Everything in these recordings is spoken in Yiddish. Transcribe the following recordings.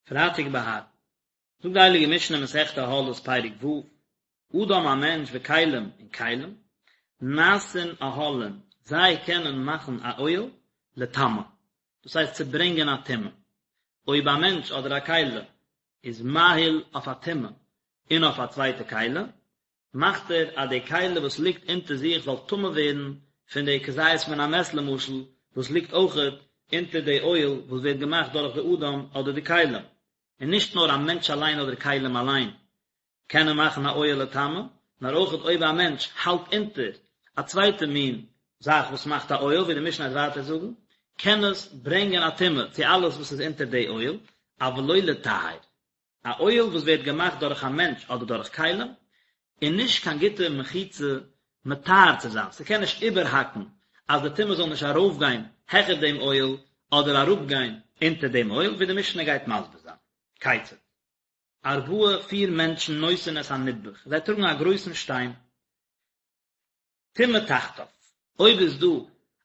פרייטאג בהר. זאגט די הייליגע משנה מסכת אהלות פרק ו', אדם א מענטש וכלים און כלים, נעשין אהלים, זיי קענען מאכן א אוהל לטמא, דאס הייסט צו ברענגען א טומאה, אויב א מענטש אדער א כלי איז מאהיל אויף א טומאה און אויף א צווייטע כלי, מאכט ער אז די כלי וואס ליגט אונטער זיך זאל טמא ווערן פון די כזית מן המת למשל וואס ליגט אויכעט אונטער די אוהל וואס ווערט געמאכט דורך די אדם אדער די כלים, און נישט נאר א מענטש אליין אדער כלים אליין קענען מאכן א אוהל לטמא, נאר אויכעט אויב א מענטש האלט אונטער א צווייטע מין זאך וואס מאכט א אוהל ווי די משנה וועט ווייטער זאגן, קען עס ברענגען א טומאה צו אלעס וואס איז אונטער די אוהל, אבל לא לטהר. א אוהל וואס ווערט געמאכט דורך א מענטש אדער דורך כלים, איז נישט קיין גוטע מחיצה מטהר צו זיין, ס'קען נישט איבערהאקן אז די טומאה זאל נישט ארויפגיין העכער דעם אוהל אדער אראפגיין אונטער דעם אוהל, ווי די משנה גייט מסביר זיין. כיצד? ארבעה פיר מענטשן נושאין את הנדבך, זיי טראגן א גרויסן שטיין, טומאה תחתיו, אויב איז דא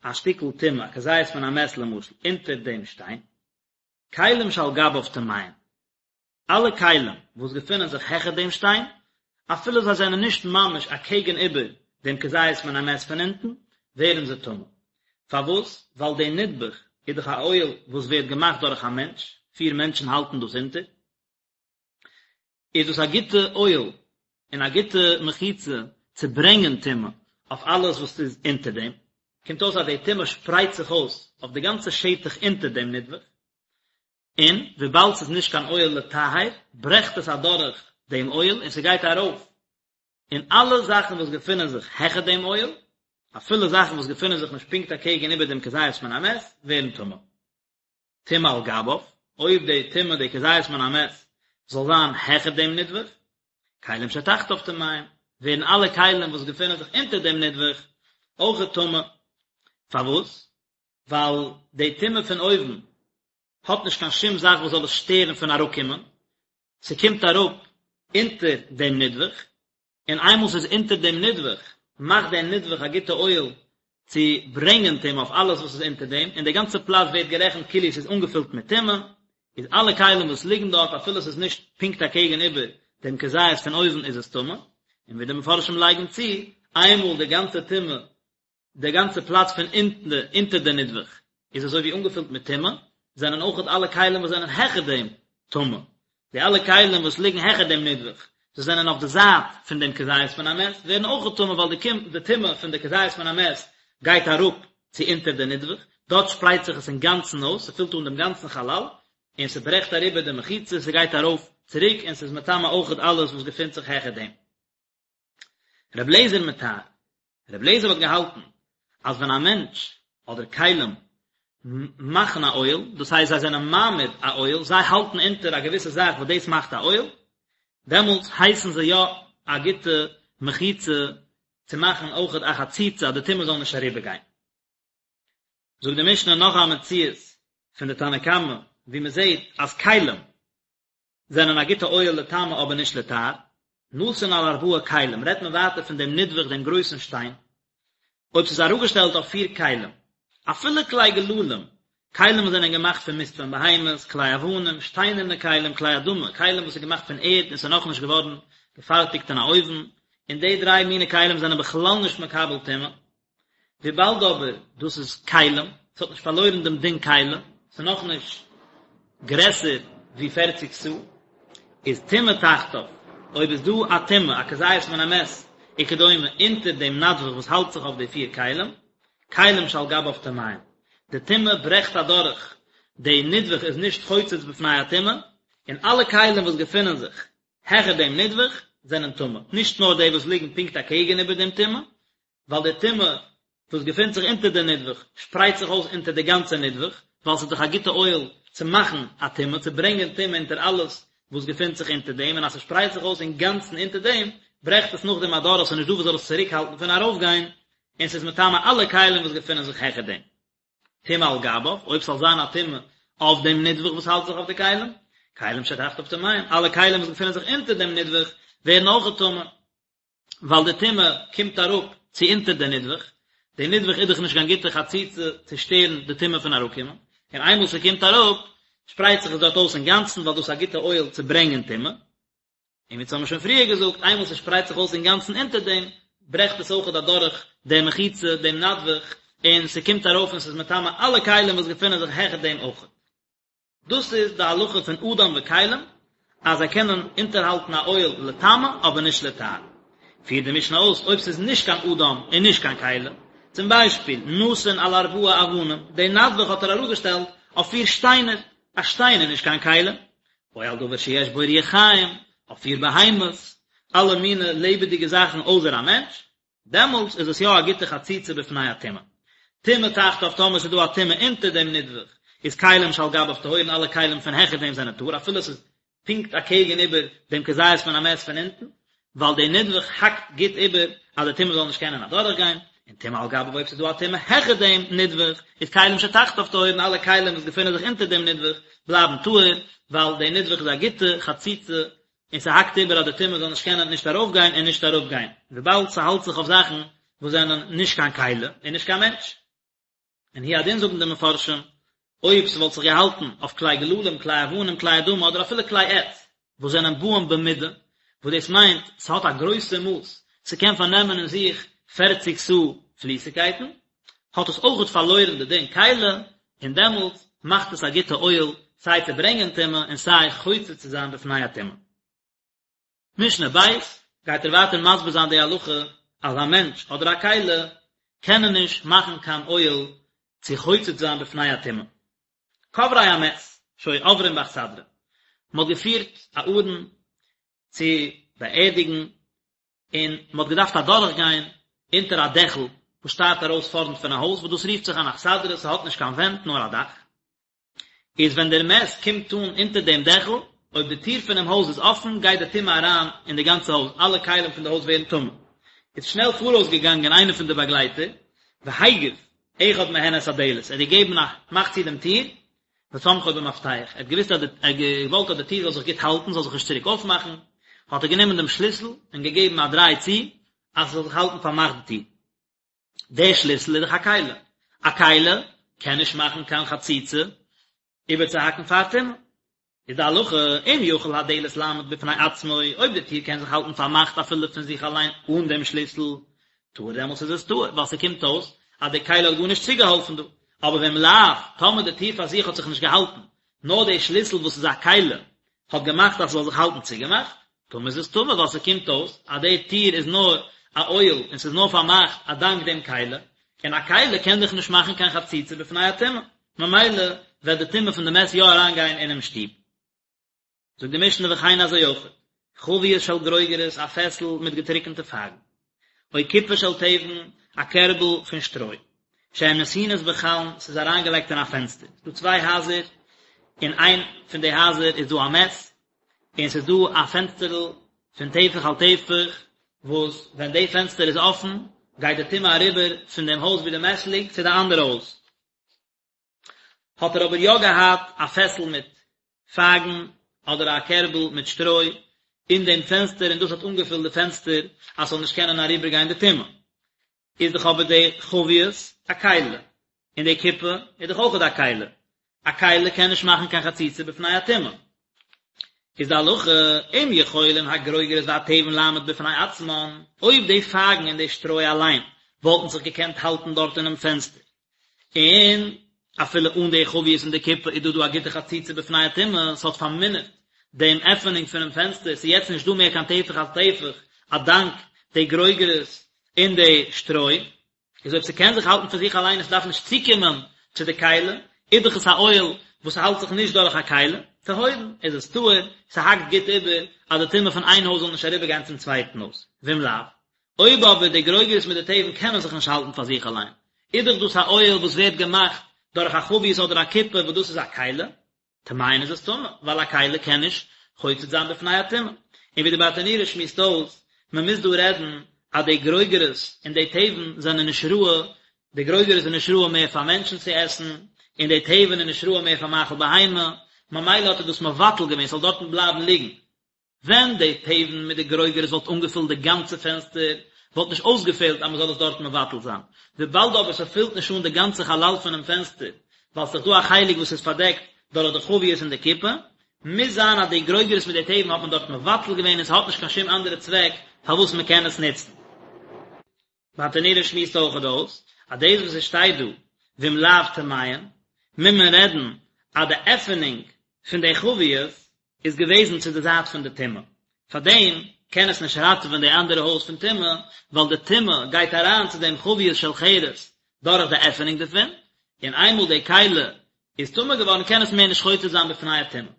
א שטיקל טומאה, א כזית מן המת למשל, אונטער דעם שטיין, כלים שעל גביו טמאין, אלע כלים וואס געפינען זיך העכער דעם שטיין, אפילו זיי זענען נישט ממש אקעגן איבער דעם כזית מן המת פון אונטן, ווערן זיי טמא. פארוואס? ווייל די נדבך איז דאך א אוהל וואס ווערט געמאכט דורך א מענטש, פיר מענטשן האלטן דאס אונטער, איז דאס א גוטע אוהל און א גוטע מחיצה צו ברענגען טומאה אויף אלעס וואס איז אונטער דעם, קומט אויס אז די טומאה שפרייט זיך אויס אויף די גאנצע שטח אונטער דעם נדבך, און וויבאלד ס'איז נישט קיין אוהל לטהר, ברעכט עס אדורך דעם אוהל און ס'גייט ארויף אין אלע זאכן וואס געפינען זיך העכער דעם אוהל, אפילו זאכן וואס געפינען זיך נישט פונקט אקעגן איבער דעם כזית מן המת, ווערן טמא. טומאה על גביו, אויב די טומאה די כזית מן המת זאל זיין העכער דעם נדבך, כלים שתחתיו טמאים, ווערן אלע כלים וואס געפינען זיך אונטער דעם נדבך אויכעט טמא. פארוואס? ווייל די טומאה פון אויבן האט נישט קיין שום זאך וואס זאל עס שטערן פון אראפקומען, ס'קומט אראפ אונטער דעם נדבך, און איינמאל ס'איז אונטער דעם נדבך, מאכט דער נדבך א גוטע אוהל צו ברענגען טומאה אויף אלעס וואס איז אונטער דעם, און די גאנצע פלאץ ווערט גערעכנט כאילו ס'איז אנגעפילט מיט טומאה, איז אלע כלים וואס ליגן דארט אפילו ס'איז נישט פונקט אקעגן איבער דעם כזית פון אויבן איז עס טמא, און ווי די מפרשים לייגן צו, איינמאל די גאנצע טומאה די גאנצע פלאץ פון אונטן אונטער די נדבך איז אזוי ווי אנגעפילט מיט טומאה, זענען אויכעט אלע כלים וואס זענען העכער דעם טמא. די אלע כלים וואס ליגן העכער דעם נדבך, זיי זענען אויף די זייט פון דעם כזית מן המת, ווערן אויכעט טמא ווייל די טומאה פון די כזית מן המת גייט אראפ צו אונטער די נדבך, דארט שפרייט זיך עס אינגאנצן אויס, ס'פילט אן דעם גאנצן חלל, און ס'ברעכט אריבער די מחיצה, ס'גייט ארויף צוריק און ס'איז מטמא אויכעט אלעס וואס געפינט זיך העכער דעם. רבי אליעזר מטהר, רבי אליעזר האט געהאלטן אז ווען א מענטש אדער כלים מאכן א אוהל, דאס הייסט זיי זענען מעמיד א אוהל, זיי האלטן אונטער א געוויסע זאך וואס דאס מאכט א אוהל, דעמאלטס הייסן זיי יא א גוטע מחיצה צו מאכן אויכעט א חציצה אז די טומאה זאל נישט אריבערגיין. זאגט די משנה נאך א מציאות פון די תנא קמא ווי מען זעט אז כלים זענען א גוטע אוהל לטמא אבער נישט לטהר. נתון על ארבעה כלים רעדט מען ווייטער פון דעם נדבך דעם גרויסן שטיין, אויב ס'איז אראפגעשטעלט אויף פיר כלים, אפילו כלי גללים, כלים וואס זענען געמאכט פון מיסט פון בהמות, כלי אבנים, שטיינערנע כלים, כלי אדמה, כלים וואס איז געמאכט פון ערד און ס'איז נאכנישט געווארן געפארטיגט אין א אויוון, און די דריי מיני כלים זענען בכלל נישט מקבל טומאה. וויבאלד אבער דאס איז כלים, ס'האט נישט פארלוירן דעם דין כלי, ס'איז נאכנישט גרעסער ווי פערציג סאה, איז טומאה תחתיו, אויב איז דא א טומאה, א כזית מן המת וכדומה, אונטער דעם נדבך וואס האלט זיך אויף די פיר כלים, כלים שעל גביו טמאים, די טומאה ברעכט אדורך, די נדבך איז נישט חוצץ בפני הטומאה, און אלע כלים וואס געפינען זיך העכער דעם נדבך זענען טמא, נישט נאר די וואס ליגן פונקט אקעגן איבער דעם טומאה, ווייל די טומאה וואס געפינט זיך אונטער די נדבך שפרייט זיך אויס אונטער די גאנצע נדבך, ווייל ס'איז דאך א גוטע אוהל צו מאכן א טומאה, צו ברענגען טומאה אונטער אלעס וואס געפינט זיך אונטער דעם, און אז ס'שפרייט זיך אויס אינגאנצן אונטער דעם, ברעכט עס נאכדעם אדורך, ס'איז נישט דא וואס זאל עס צוריקהאלטן פון ארויפגיין, און ס'איז מטמא אלע כלים וואס געפינען זיך העכער דעם. טומאה על גביו, אויב ס'זאל זיין א טומאה אויף דעם נדבך וואס האלט זיך אויף די כלים, כלים שתחתיו טמאים, אלע כלים וואס געפינען זיך אונטער דעם נדבך ווערן אויכעט טמא. ווייל די טומאה קומט אראפ צו אונטער די נדבך, די נדבך איז דאך נישט קיין גוטע חציצה צו שטערן די טומאה פון אראפקומען, און איינמאל ס'קומט אראפ, שפרייט זיך עס דארט אויס אינגאנצן ווייל דאס איז א גוטע אוהל צו ברענגען טומאה. און ווי אונז האבן שוין פריער געזאגט, איינמאל ס'שפרייט זיך אויס אינגאנצן אונטער דעם, ברעכט עס אויכעט אדורך די מחיצה, דעם נדבך, און ס'קומט ארויף און ס'איז מטמא אלע כלים וואס געפינען זיך העכער דעם אויכעט. דאס איז די הלכה פון אדם וכלים, אז זיי קענען אונטערהאלטן א אוהל לטמא אבער נישט לטהר. פירט די משנה אויס, אויב ס'איז נישט קיין אדם און נישט קיין כלי, צום ביישפיל, נתון על ארבעה אבנים, די נדבך האט ער אראפגעשטעלט אויף פיר שטיינער, א שטיין איז נישט קיין כלי, או על דבר שיש בו רוח חיים, אויף פיר בהמות, אלע מיני לעבעדיגע זאכן אויסער א מענטש, דעמאלטס איז עס יא א גוטע חציצה בפני הטומאה. טומאה תחתיו טאמער ס'איז דא א טומאה אונטער דעם נדבך, איז כלים שעל גביו טהורין אלע כלים פון העכער דעם זענען טהור אפילו עס איז פונקט אקעגן איבער דעם כזית פון א מת פון אונטן, ווייל דער נדבך האקט גוט איבער אז די טומאה זאל נישט קענען אדורכגיין, און טומאה על גביו אויב ס'איז דא א טומאה העכער דעם נדבך, איז כלים שתחתיו טהורין אלע כלים וואס געפינען זיך אונטער דעם נדבך בלייבן טהור, ווייל דער נדבך איז א גוטע חציצה און ס'האקט איבער אז די טומאה זאל נישט קענען נישט ארויפגיין און נישט אראפגיין, וויבאלד ס'האלט זיך אויף זאכן וואס זענען נישט קיין כלי און נישט קיין מענטש. און הוא הדין זאגן די מפרשים, אויב ס'וואלט זיך געהאלטן אויף כלי גללים, כלי אבנים, כלי אדמה אדער אפילו כלי עץ, וואס זענען באים במידה, וואס דאס מיינט ס'האט א גרויסע מאס, ס'קען פארנעמען אין זיך פערציג סאה פליסיגקייטן, האט עס אויכעט פארלוירן די דין כלי, און דעמאלטס מאכט עס א גוטע אוהל סיי צו ברענגען טומאה און סיי חוצץ צו זיין בפני הטומאה. משנה ב', גייט ער ווייטער מסביר זיין די הלכה אז א מענטש אדער א כלי קענען נישט מאכן קיין אוהל צו חוצץ זיין בפני הטומאה. כוברי המת שהיו עוברים באכסדרה, מען האט געפירט א ארון צו באערדיגן און מען האט געדארפט אדורך גיין אונטער א דעכל וואס שטארט ארויס פארנט פון א הויז וואס דאס רופט זיך אן אכסדרה, ס'האט נישט קיין ווענט נאר א דאך, איז ווען דער מת קומט אן אונטער דעם דעכל, אויב די טיר פונעם הויז איז אפן גייט די טומאה אריין אין די גאנצע הויז, אלע כלים פון די הויז ווערן טמא. איז שנעל פאראויס געגאנגען איינער פון די באגלייטער, והגיף אחד מהן את הדלת, ער האט געגעבן א מאך צו דעם טיר, וסמכו במפתח, ער האט געוואוסט אז די, ער האט געוואלט אז די טיר זאל זיך גוט האלטן, זאל זיך נישט צוריק אויפמאכן, האט ער גענומען דעם שליסל און געגעבן א דריי צו, אז עס זאל זיך האלטן פארמאכט די טיר. דער שליסל איז דאך א כלי, א כלי קען נישט מאכן קיין חציצה איבערצוהאקן פאר טומאה. איז די הלכה, אם יכול הדלת לעמוד בפני עצמו, אויב די טיר קען זיך האלטן פארמאכט אפילו פון זיך אליין אן דעם שליסל, טהור דעמאלטס איז עס טהור, ווייל ס'קומט אויס אז די כלי האט גארנישט צוגעהאלפן דא. אבער ואם לאו, טאמער די טיר פאר זיך האט זיך נישט געהאלטן, נאר די שליסל וואס איז א כלי האט געמאכט אז ס'זאל זיך האלטן צוגעמאכט, טמא איז עס טמא ווייל ס'קומט אויס אז די טיר איז נאר א אוהל און ס'איז נאר פארמאכט א דאנק דעם כלי, און א כלי קען דאך נישט מאכן קיין חציצה בפני הטומאה, ממילא וועט די טומאה פון די מת יא אריינגיין אינעם שטוב. זאגט די משנה וכן אזוי אויך, חבית של גרוגרות א פעסל מיט געטריקענטע פייגן, או קופה של תבן א קערבל פון שטרוי, שהן נתונות בחלון ס'איז אריינגעלייגט אין א פענסטער, ס'איז דא צוויי הייזער, אין איין פון די הייזער איז דא א מת, און ס'איז דא א פענסטערל פון טפח על טפח, וואס ווען די פענסטער איז אפן, גייט די טומאה אריבער פון דעם הויז ווי די מת ליגט צו די אנדערע הויז. האט ער אבער יא געהאט א פעסל מיט פייגן אדער א קערבל מיט שטרוי אין דעם פענסטער און דאס האט אנגעפילט די פענסטער אז ס'זאל נישט קענען אריבערגיין די טומאה. איז דאך אבער די חבית א כלי, און די קופה איז דאך אויכעט א כלי, א כלי קען נישט מאכן קיין חציצה בפני הטומאה. איז די הלכה, אם יכולים הגרוגרות והתבן לעמוד בפני עצמן, אויב די פייגן און די שטרוי אליין וואלטן זיך געקענט האלטן דארט אינעם פענסטער, און אפילו אן די חבית און די קופה איז דא דא א גוטע חציצה בפני הטומאה, ס'האט פארמינערט דעם עפענונג פונעם פענסטער, ס'איז יעצט נישט דא מער קיין טפח על טפח א דאנק די גרוגרות און די שטרוי, איז אויב ס'קען זיך האלטן פון זיך אליין און ס'דארף נישט צוקומען צו די כלי, איז דאך עס א אוהל וואס האלט זיך נישט דורך א כלי, טהורין, איז עס טהור, ס'האקט גוט איבער אז די טומאה פון איין הויז זאל נישט אריבערגיין צום צווייטן הויז, ואם לאו, אויב אבער די גרוגרות מיט די תבן קענען זיך נישט האלטן פאר זיך אליין, איז דאך דאס א אוהל וואס ווערט געמאכט דורך א חבית אדער א קופה וואס דאס איז א כלי, טמאין איז עס טמא, ווייל א כלי קען נישט חוצץ זיין בפני הטומאה. און ווי די ברטנורא שמועסט אויס, מען מוז דא רעדן אז די גרוגרות און די תבן זענען נישט ראוי, די גרוגרות איז נישט ראוי מער פאר מענטשן צו עסן, און די תבן איז נישט ראוי מער פאר מאכל בהמה, ממילא האט ער דאס מבטל געווען ס'זאל דארטן בלייבן ליגן. ווען די תבן מיט די גרוגרות וואלט אנגעפילט די גאנצע פענסטער, וואלט נישט אויסגעפעלט אז מען זאל עס דארט מבטל זיין. וויבאלד אבער ס'פילט נישט אן די גאנצע חלל פונעם פענסטער, ווייל ס'איז דא א חלק וואס איז פארדעקט. דורך די חביות און די כיפה, מוז זיין אז די גרוגרות מיט די תבן האט מען דארט מבטל געווען און ס'האט נישט קיין שום אנדערע צוועק פארוואס מ'קען עס נוצן. ברטנורא שמועסט אויכעט אויס אז דאס וואס עס שטייט דא ואם לאו טמאין מוז מען רעדן אז די עפענונג פון די חביות איז געוועזן צו די זייט פון די טומאה, פארדעם קען עס נישט ראטעווען די אנדערע הויז פון טומאה, ווייל די טומאה גייט אריין צו דעם חביות של חרס דורך די עפענונג דערפון, און איינמאל די כלי איז טמא געווארן קען עס מער נישט חוצץ זיין בפני הטומאה.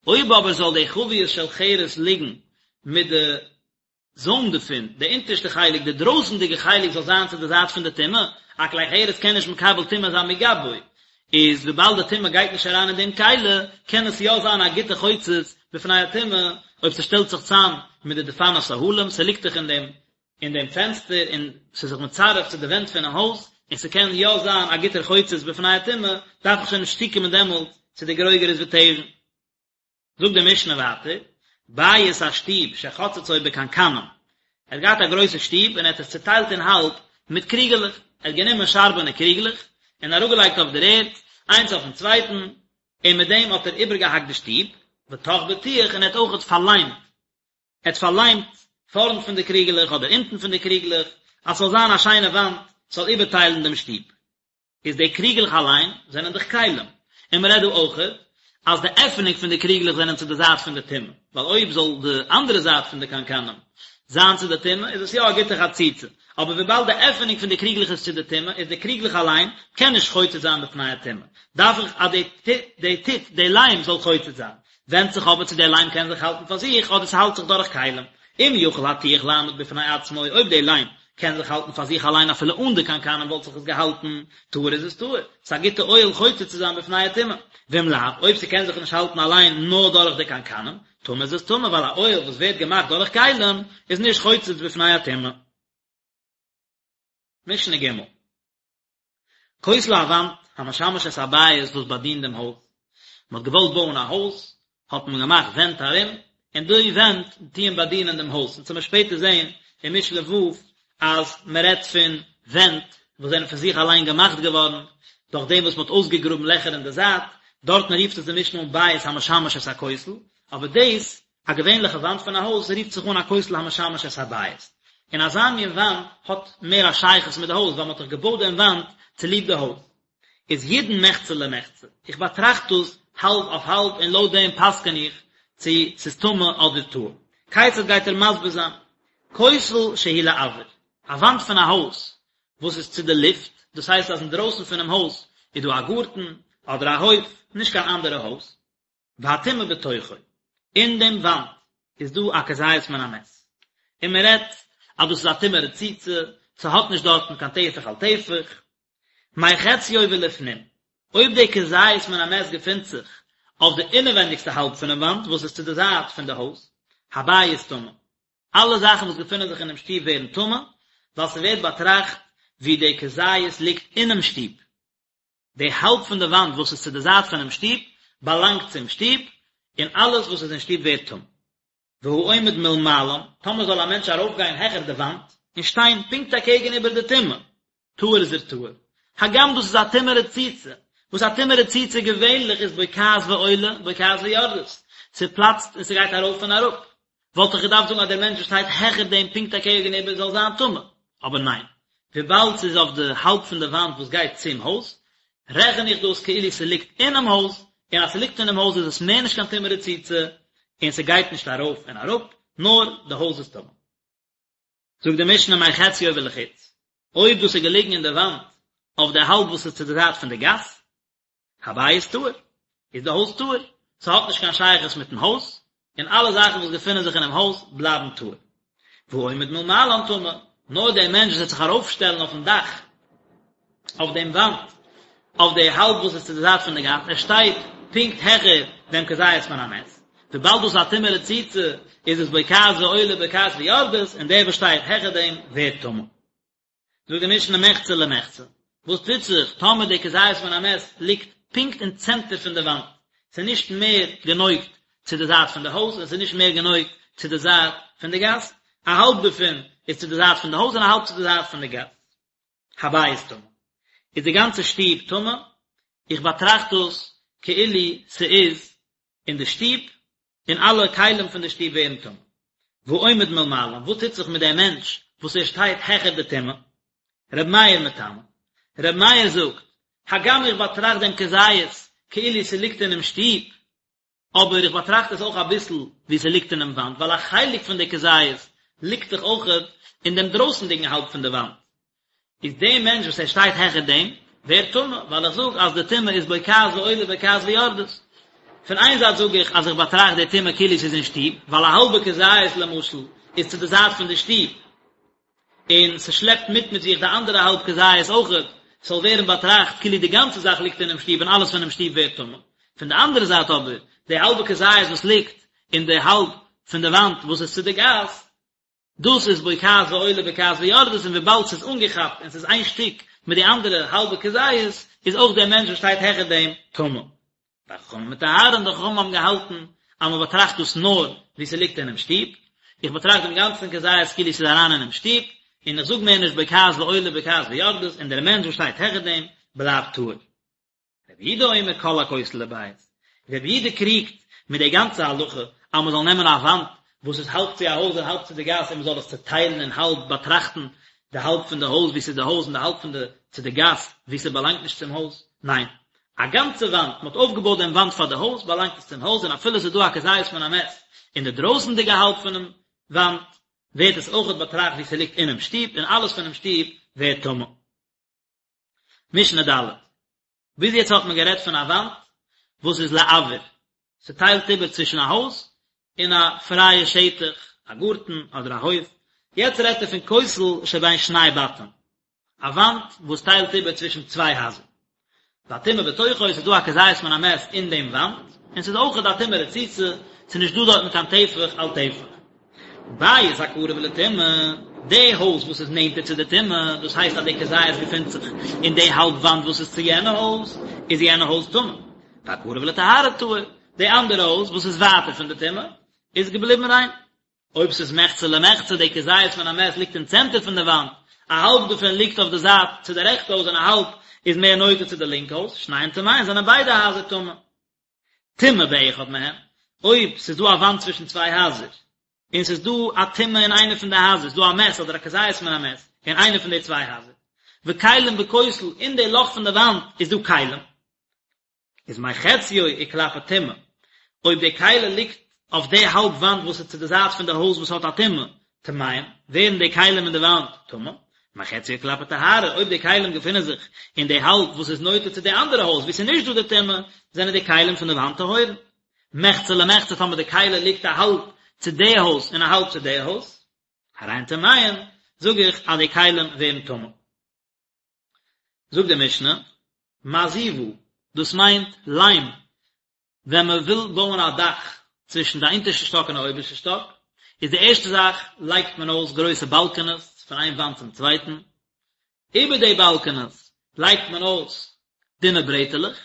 אויב אבער זאל די חביות של חרס ליגן מיט די זוים דערפון, די אונטערשטע חלק, די דרויסנדיגע חלק זאל זיין צו די זייט פון די טומאה, א כלי חרס קען נישט מקבל טומאה זיין מגבו, איז וויבאלד די טומאה גייט נישט אריין אין דעם כלי, קען עס יא זיין א גוטע חוצץ בפני הטומאה, אויב ס'שטעלט זיך צאם מיט די דפנות אהלים, ס'ליגט דאך אין דעם אין דעם פענסטער און ס'איז זיך מצרף צו די ווענט פונעם הויז, און ס'קען יא זיין א גוטער חוצץ בפני הטומאה, דארף איך שוין נישט צוקומען דעמאלט צו די גרוגרות ותבן. זאגט די משנה ווייטער, בית א שטוב שחצצו בקנקנים, ער האט געהאט א גרויסע שטוב און ער האט עס צוטיילט אין האלב מיט קריגעלעך, ער האט גענומען שארבענע קריגלעך און אראפגעלייגט אויף דער ערד, איינס אויפן צווייטן, און מיט דעם האט ער איבערגעהאקט די שטוב, וטח בטיח און ער האט אויכעט פארליימט, ער האט פארליימט פארנט פון די קריגעלעך אדער אונטן פון די קריגלעך, אז ס'זאל זיין א שיינע וואנט, ס'זאל איבערטיילן דעם שטוב. איז די קריגלעך אליין זענען דאך כלים, און מען רעדט דא אויכעט אז די עפענונג פון די קריגלעך זענען צו די זייט פון די טומאה, ווייל אויב זאל די אנדערע זייט פון די קנקנים זיין צו די טומאה איז עס יא א גוטע חציצה, אבער וויבאלד די עפענונג פון די קריגלעך איז צו די טומאה איז די קריגלעך אליין קען נישט חוצץ זיין בפני הטומאה, דארף איך אז די די טיט די ליים זאל חוצץ זיין, ווענדט זיך אבער צו דער ליים קען זיך האלטן פאר זיך אדער ס'האלט זיך דורך כלים. אם יכול הטיח לעמוד בפני עצמו, אויב דער ליים קען זיך האלטן פאר זיך אליין אפילו אן די קנקנים וואלט זיך עס געהאלטן, טהור איז עס טהור, ס'איז א גוטע אוהל חוצץ צו זיין בפני הטומאה. ואם לאו, אויב ס'קען זיך נישט האלטן אליין נאר דורך די קנקנים, טמא איז עס טמא, ווייל א אוהל וואס ווערט געמאכט דורך כלים איז נישט חוצץ בפני הטומאה. משנה ג'. כותל א וואנט, המשמש את הבית וואס באדינט דעם הויז. מען האט געוואלט בויען א הויז, האט מען געמאכט ווענט ארום, און די ווענט טוען באדינען דעם הויז. אונז וועלן שפעטער זען אין משנה ו' אז מען רעדט פון ווענט וואס זענען פון זיך אליין געמאכט געווארן, דורך דעם וואס מען האט אויסגעגראבן לעכער אין די זייט, דארטן רופט עס די משנה אן בית המשמש את הכותל, אבער דאס א געווענליכע וואנט פון א הויז רופט זיך אן א כותל המשמש את הבית, און אזא מין וואנט האט מער א שייכות מיט די הויז ווייל מען האט דאך געבויט דעם וואנט צוליב די הויז. איז ידון מחצה למחצה, איך באטראכט דאס האלב אויף האלב און לויט דעם פסק'ן איך צו ס'איז טמא אדער טהור. כיצד גייט ער מסביר זיין? כותל שהוא לאויר, א וואנט פון א הויז וואס איז צו די לופט, דאס הייסט אז אינדרויסן פונעם הויז איז דא א גארטן אדער א הויף, נישט קיין אנדערע הויז, והטומאה בתוכו, אין דעם וואנט איז דא א כזית מן המת, און מען רעדט אז דאס איז א טומאה רצוצה, ס'האט נישט דארטן קיין טפח על טפח, מחציו ולפנים, אויב די כזית מן המת געפינט זיך אויף די אינעווענדיגסטע האלב פונעם וואנט וואס איז צו די זייט פון די הויז, הבית טמא, אלע זאכן וואס געפינען זיך אינעם שטוב ווערן טמא, ווייל ס'ווערט באטראכט ווי די כזית ליגט אינעם שטוב. די האלב פון די וואנט וואס איז צו די זייט פונעם שטוב, באלאנגט צום שטוב, און אלעס וואס איז אין שטוב ווערט טמא. והעומד מלמעלן, טאמער זאל א מענטש ארויפגיין העכער די וואנט, און שטיין פונקט אקעגן איבער די טומאה, טהור איז ער טהור. הגם דאס איז א טומאה רצוצה, וואס א טומאה רצוצה געווענליך איז בוקעת ועולה, בוקעת ויורדת, ס'פלאצט און ס'גייט ארויף און אראפ, וואלט איך געדארפט זאגן אז דער מענטש וואס שטייט העכער דעם פונקט אקעגן איבער זאל זיין טמא, אבער ניין, וויבאלד ס'איז אויף די האלב פון די וואנט וואס גייט צום הויז, רעכן איך דאס כאילו ס'ליגט אינעם הויז, און אז ס'ליגט אינעם הויז איז עס מער נישט קיין טומאה רצוצה, און ס'גייט נישט ארויף און אראפ, נאר די הויז איז טמא. זאגט די משנה מחציו ולחוץ, אויב דאס איז געליגן אין די וואנט אויף די האלב וואס איז צו די זייט פון די גאס, הבית טהור, איז די הויז טהור, ס'האט נישט קיין שייכות מיטן הויז, און אלע זאכן וואס געפינען זיך אינעם הויז בלייבן טהור. והעומד מלמעלן טמא, נאר דער מענטש וואס וועט זיך ארויפשטעלן אויפן דאך, אויף דעם וואנט, אויף די האלב וואס איז צו די זייט פון די גאס, ער שטייט פונקט העכער דעם כזית מן המת, וויבאלד דאס איז א טומאה רצוצה, איז עס בוקעת ועולה בוקעת ויורדת, און דער וואס שטייט העכער דעם ווערט טמא. זאגט די משנה מחצה למחצה, וואס טוט זיך טאמער די כזית מן המת ליגט פונקט אין צענטער פון די וואנט, ס'איז נישט מער גענויגט צו די זייט פון די הויז און ס'איז נישט מער גענויגט צו די זייט פון די גאס, א האלב דערפון איז צו די זייט פון די הויז און א האלב צו די זייט פון די גאס. הבית טמא. איז די גאנצע שטוב טמא? איך באטראכט דאס. כאילו ס'איז אין די שטוב, און אלע כלים פון די שטוב ווערן טמא. והעומד מלמעלה, וואס טוט זיך מיט דעם מענטש וואס ער שטייט העכער די טומאה? ר' מאיר מטמא. ר' מאיר זאגט, הגם איך באטראכט דעם כזית כאילו ס'ליגט אינעם שטוב, אבער איך באטראכט עס אויך אביסל ווי ס'ליגט אינעם וואנט, ווייל א חלק פון די כזית ליגט דאך אויכעט אין דעם דרויסנדיגן האלב פון די וואנט. איז דער מענטש וואס ער שטייט העכער דעם, ווערט טמא, ווייל איך זאג אז די טומאה איז בוקעת ועולה בוקעת ויורדת. פון איין זייט זאג איך אז איך באטראכט די טומאה כאילו ס'איז אין שטוב, ווייל א האלבע כזית למשל איז צו די זייט פון די שטוב, און ס'שלעפט מיט מיט זיך די אנדערע האלב כזית אויכעט, ס'זאל ווערן באטראכט כאילו די גאנצע זאך ליגט אינעם שטוב און אלעס פונעם שטוב ווערט טמא. פון די אנדערע זייט אבער, די האלבע כזית וואס ליגט אין די האלב פון די וואנט וואס איז צו די גאס, דאס איז בוקעת ועולה בוקעת ויורדת און וויבאלד ס'איז אנגעכאפט און ס'איז איין שטיק מיט די אנדערע האלבע כזית, איז אויך דער מענטש וואס שטייט העכער דעם טמא. וחכמים מטהרין, די חכמים האבן געהאלטן אז מען באטראכט דאס נאר ווי ס'ליגט אינעם שטוב, איך באטראכט דעם גאנצן כזית כאילו ס'איז אריין אינעם שטוב, און איך זאג מער נישט בוקעת ועולה בוקעת ויורדת, און דער מענטש וואס שטייט העכער דעם בלייבט טהור. רבי יהודה אומר כל הכותל לבית, רבי יהודה קריגט מיט די גאנצע הלכה אז מען זאל נעמען א וואנט וואס איז האלב צו א הויז און האלב צו די גאס און מען זאל עס צעטיילן אין האלב באטראכטן די האלב פון די הויז ווי ס'איז די הויז און די האלב פון די צו די גאס ווי ס'באלאנגט נישט צום הויז, ניין, א גאנצע וואנט, מען האט אויפגעבויט דעם וואנט פאר די הויז, באלאנגט עס צום הויז און אפילו עס איז דא א כזית מן המת אין די דרויסנדיגע האלב פונעם וואנט, ווערט עס אויכעט באטראכט ווי ס'ליגט אינעם שטוב און אלעס פונעם שטוב ווערט טמא. משנה ד'. ביז יעצט האט מען גערעדט פון א וואנט וואס איז לאויר, ס'טיילט איבער צווישן א הויז און א פרייע שטח, א גארטן אדער א הויף, יעצט רעדט ער פון כותל שבין שני בתים, א וואנט וואס טיילט איבער צווישן צוויי הייזער. והטומאה בתוכו, ס'איז דא א כזית מן המת אין דעם וואנט, און ס'איז אויכעט א טומאה רצוצה, ס'איז נישט דא דארטן קיין טפח על טפח. בית הקרוב לטומאה, די הויז וואס איז נענטער צו די טומאה, דאס הייסט אז די כזית געפינט זיך אין די האלב וואנט וואס איז צו יענע הויז, איז יענע הויז טמא. והקרוב לטהרה טהור, די אנדערע הויז וואס איז ווייטער פון די טומאה, איז געבליבן ריין. אויב ס'איז מחצה למחצה, די כזית מן המת ליגט אין צענטער פון די וואנט, א האלב דערפון ליגט אויף די זייט צו די רעכטע הויז און א האלב איז מער נוטה צו די לינקע הויז, שניהם טמאין, זענען ביידע הייזער טמא. טומאה באחד מהם, אויב ס'איז דא א וואנט צווישן צוויי הייזער, און ס'איז דא א טומאה אין איינע פון די הייזער, ס'איז דא א מת אדער א כזית מן המת אין איינע פון די צוויי הייזער, וכלים בכותל, אין די לאך פון די וואנט איז דא כלים, איז מחציו וכלפי טומאה, אויב די כלי ליגט אויף די האלב וואנט וואס איז צו די זייט פון די הויז וואס האט א טומאה, טמאים, ווערן די כלים אין די וואנט טמא, מחציו וכלפי טהרה, אויב די כלים געפינען זיך אין די האלב וואס איז נוטה צו די אנדערע הויז וואו ס'איז נישט דא די טומאה, זענען די כלים פון די וואנט טהורין. מחצה למחצה טאמער די כלי ליגט א האלב צו די הויז און א האלב צו די הויז, הרי הן טמאין, זאג איך אז די כלים ווערן טמא. זאגט די משנה, מעזיבה, דאס מיינט ליים, ווען מען וויל בויען א דאך צווישן די אונטערשטע שטאק און די אויבערשטע שטאק, איז די ערשטע זאך לייגט מען אויס גרויסע באלקענעס פון איין וואנט צום צווייטן, איבער די באלקענעס לייגט מען אויס דינע ברעטעלעך,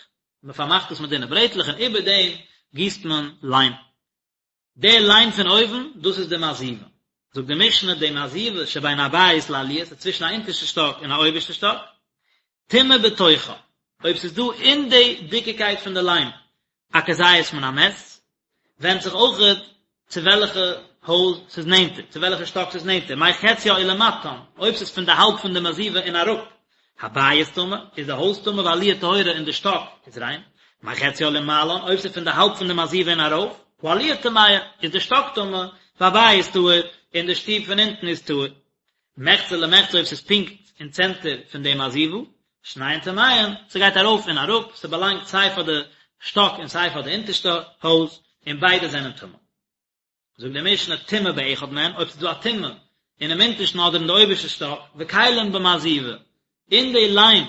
מען פארמאכט עס מיט דינע ברעטלעך און איבער דעם גיסט מען ליים. די ליים פון אויבן, דאס איז די מעזיבה. זאגט די משנה, די מעזיבה שבין הבית לעליה, ס'איז צווישן א אונטערשטע שטאק און א אויבערשטע שטאק, טומאה בתוכה, אויב ס'איז דא אין די דיקיקייט פון די ליים א כזית מן המת, ווענדט זיך אויכעט צו וועלכע הויז ס'איז נענטער, צו וועלכע שטאק ס'איז נענטער, מחציה ולמטן, אויב ס'איז פון די האלב פון די מעזיבה און אראפ, הבית טמא, איז די הויז טמא והעליה טהורה און די שטאק איז ריין, מחציה ולמעלן, אויב ס'איז פון די האלב פון די מעזיבה און ארויף, העליה טמאה, איז די שטאק טמא, והבית טהור, און די שטוב פון אונטן איז טהור. מחצה למחצה אויב ס'איז פונקט אין צענטער פון די מעזיבה, שניהם טמאין, ס'גייט ארויף און אראפ, ס'באלאנגט סיי פאר די שטאק און סיי פאר די אונטערשטע הויז, און ביידע זענען טמא. זאגט די משנה טומאה באחד מהן, אויב ס'איז דא א טומאה אינעם אונטערשטן אדער אין די אויבערשטע שטאק, וכלים במעזיבה, אין די ליים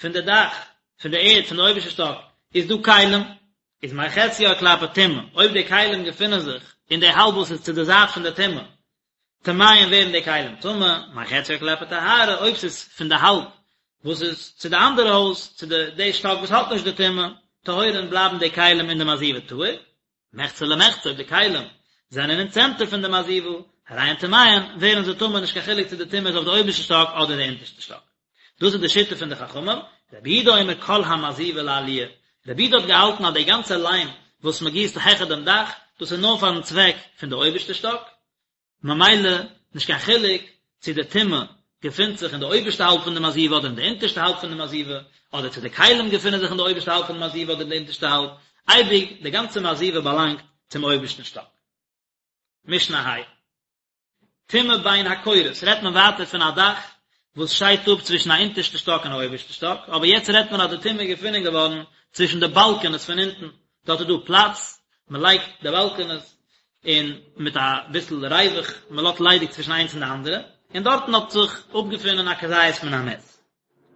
פון די דאך פון די ערד פון די אויבערשטע שטאק איז דא כלים, איז מחציה כלפי טומאה, אויב די כלים געפינען זיך אין די האלב וואס איז צו די זייט פון די טומאה, טמאין ווערן די כלים טמא, מחציה כלפי טהרה, אויב ס'איז פון די האלב וואס איז צו די אנדערע הויז, צו די די שטאק וואס האט נישט די טומאה, טהורין בלייבן די כלים אין די מעזיבה טהור, מחצה למחצה אויב די כלים זענען אין צענטער פון די מעזיבה, הרי הן טמאין, ווערן זיי טמא נישט קיין חילוק צו די טומאה איז אויף די אויבערשטע שטאק אדער די אונטערשטע שטאק. דאס איז די שיטה פון די חכמים, רבי יהודה אומר כל המעזיבה לעליה. רבי יהודה האט געהאלטן אז די גאנצע ליים וואס מען גיסט העכער דעם דאך, דאס איז נאר פארן צוועק פון די אויבערשטע שטאק, ממילא נישט קיין חילוק צו די טומאה געפינט זיך אין די אויבערשטע האלב פון די מעזיבה אדער אין די אונטערשטע האלב פון די מעזיבה, אדער צו די כלים געפינען זיך אין די אויבערשטע האלב פון די מעזיבה אדער אין די אונטערשטע האלב, אייביג די גאנצע מעזיבה באלאנגט צום אויבערשטן שטאק. משנה ה'. טומאה בין הקורות רעדט מען ווייטער פון א דאך וואס שיידט אפ צווישן א אונטערשטע שטאק און א אויבערשטע שטאק, אבער יעצט רעדט מען אז די טומאה איז געפונען געווארן צווישן די באלקענעס פון אונטן, דארט איז דא פלאץ, מען לייגט די באלקענעס און מיט א ביסל ריווח, מען לאזט ליידיג צווישן איינס און די אנדערע, און דארטן האט זיך אפגעפונען א כזית מן המת.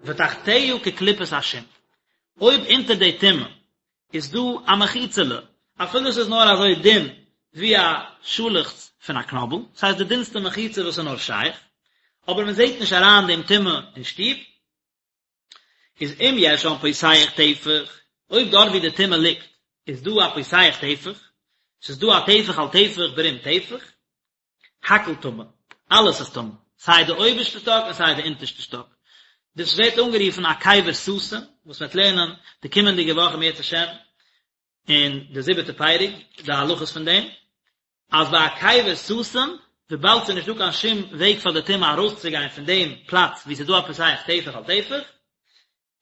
ותחתיה כקליפת השום, אויב אונטער די טומאה איז דא א מחיצה'לע, אפילו ס'איז נאר אזוי דין ווי א שאלעכץ פון א קנאבל, ס'הייסט די דינסטע מחיצה וואס איז נאר שייך, אבער מען זעט נישט אריין דעם טומאה אין שטוב, איז אם יש שם פותח טפח, אויב דארט ווי די טומאה ליגט איז דא א פותח טפח, ס'איז דא א טפח על טפח ברום טפח, הכל טמא, אלעס איז טמא, סיי די אויבערשטע שטאק און סיי די אונטערשטע שטאק. דאס ווערט אנגערופן א קבר סתום, וואס מ'וועט לערנען די קומענדיגע וואך אם ירצה השם אין די זיבעטע פרק, די הלכות פון דעם, אז ביי א קבר סתום, וויבאלד ס'איז נישטא קיין שום וועג פאר די טומאה ארויסצוגיין פון דעם פלאץ וואו ס'איז דא א פותח טפח על טפח,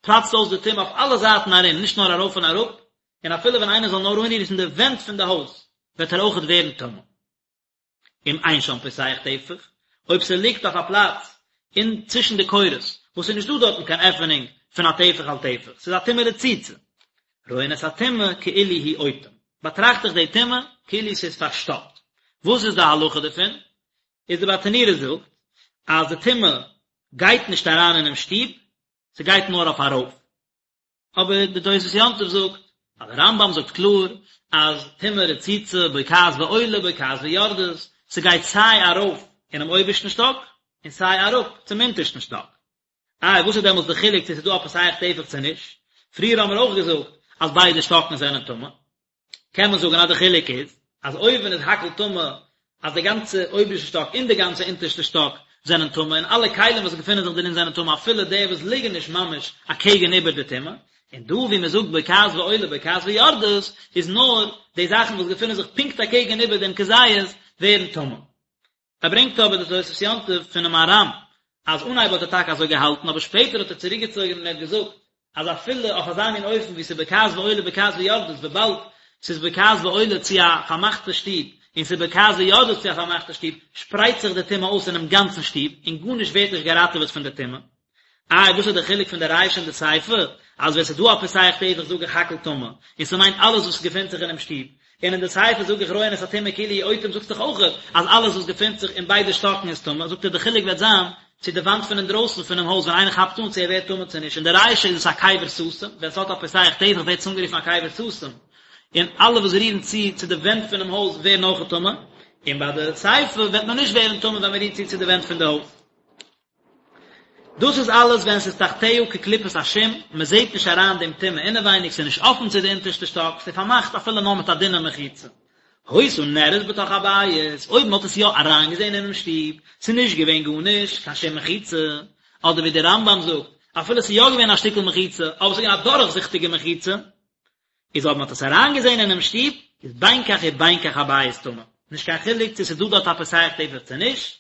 פלאצט אויס די טומאה אויף אלע זייטן ארום, נישט נאר ארויף און אראפ, און אפילו ווען איינער זאל נאר אנרירן די ווענט פון די הויז, וועט ער אויכעט ווערן טמא. אם אין שם פותח טפח, אויב ס'ליגט אויף א פלאץ אין צווישן די קורות, וואס ס'איז נישטא דארטן קיין עפענונג פון א טפח על טפח, ס'איז א טומאה רצוצה, רואין את הטומאה כאילו הוא אוטם, באטראכט איך די טומאה כאילו ס'איז פארשטאפט. וואס איז די הלכה דערפון? איז די ברטנורא זאגט אז די טומאה גייט נישט אריין אינעם שטוב, ס'גייט נאר אויף ארויף. אבער די תוספות יום טוב זאגט אז די רמב"ם זאגט קלאר אז טומאה רצוצה בוקעת ועולה בוקעת ויורדת, ס'גייט סיי ארויף אינעם אויבערשטן שטאק און סיי אראפ צום אונטערשטן שטאק. איי וואס איז דעמאלטס די חילוק צו ס'איז דא א פותח טפח צו נישט? פריער האבן מיר אויך געזאגט אז ביידע שטאקן זענען טמא. קען מען זאגן אז די חילוק איז אז אויבן איז הכל טמא אז די גאנצע אויבערשטע שטאק און די גאנצע אונטערשטע שטאק זענען טמא און אלע כלים וואס געפינען זיך דערין זענען טמא אפילו די וואס ליגן נישט ממש אקעגן איבער די טומאה, און דא ווי מען זאגט בוקעת ועולה בוקעת ויורדת איז נאר די זאכן וואס געפינען זיך פונקט אקעגן איבער דעם כזית ווערן טמא. ער ברענגט אבער די תוספות יום טוב פונעם מהר"ם אז אנהייב האט ער טאקע אזוי געהאלטן אבער שפעטער האט ער צוריקגעצויגן און ער האט געזאגט אז אפילו אויף אזא מין אופן ווי ס'איז בוקעת ועולה בוקעת ויורדת וויבאלד ס'איז בוקעת ועולה צו א פארמאכטע שטוב און ס'איז בוקעת ויורדת צו א פארמאכטע שטוב שפרייט זיך די טומאה אויס אינעם גאנצן שטוב און גארנישט ווערט נישט געראטעוועט פון די טומאה. איי וואס איז די חילוק פון די רישא און די סיפא? אז ווען ס'איז דא א פותח טפח זאג איך הכל טמא, און ס'מיינט אלעס וואס געפינט זיך אינעם שטוב, און אין די סיפא זאג איך רואין את הטומאה כאילו הוא אוטם זאגסט דאך אויך אז אלעס וואס געפינט זיך אין ביידע שטאקן איז טמא, זאגט ער די חילוק וועט זיין צו די וואנט פון אינדרויסן פונעם הויז ווען איינער כאפט אן צו ער ווערט טמא צו נישט, אין די רישא איז עס א קבר סתום, ווען ס'האט א פותח טפח ווערט עס אנגערופן א קבר סתום, און אלע וואס רירן צו צו די ווענט פונעם הויז ווערן אויך טמא, און ביי די סיפא וועט מען נישט ווערן טמא ווען מ'רירט צו צו די ווענט פון די הויז. דאס איז אלעס ווען ס'איז תחתיה כקליפת השום, מען זעט נישט אריין דעם טומאה אינעווייניג, ס'איז נישט אפן צו די אונטערשטע שטאק, ס'איז פארמאכט אפילו נאר מיט א דינע מחיצה. היתה נראית בתוך הבית, אויב מען האט עס יא אריינגעזען אינעם שטוב, ס'איז נישט געווען גארנישט, קיין שום מחיצה, אדער ווי דער רמב"ם זאגט, אפילו ס'איז יא געווען א שטיקל מחיצה, אבער ס'איז געווען א דורכזיכטיגע מחיצה, איז אויב מען האט עס אריינגעזען אינעם שטוב, איז בין כך ובין כך הבית טמא, נישט קיין חילוק צו ס'איז דא דארט א פותח טפח צו נישט,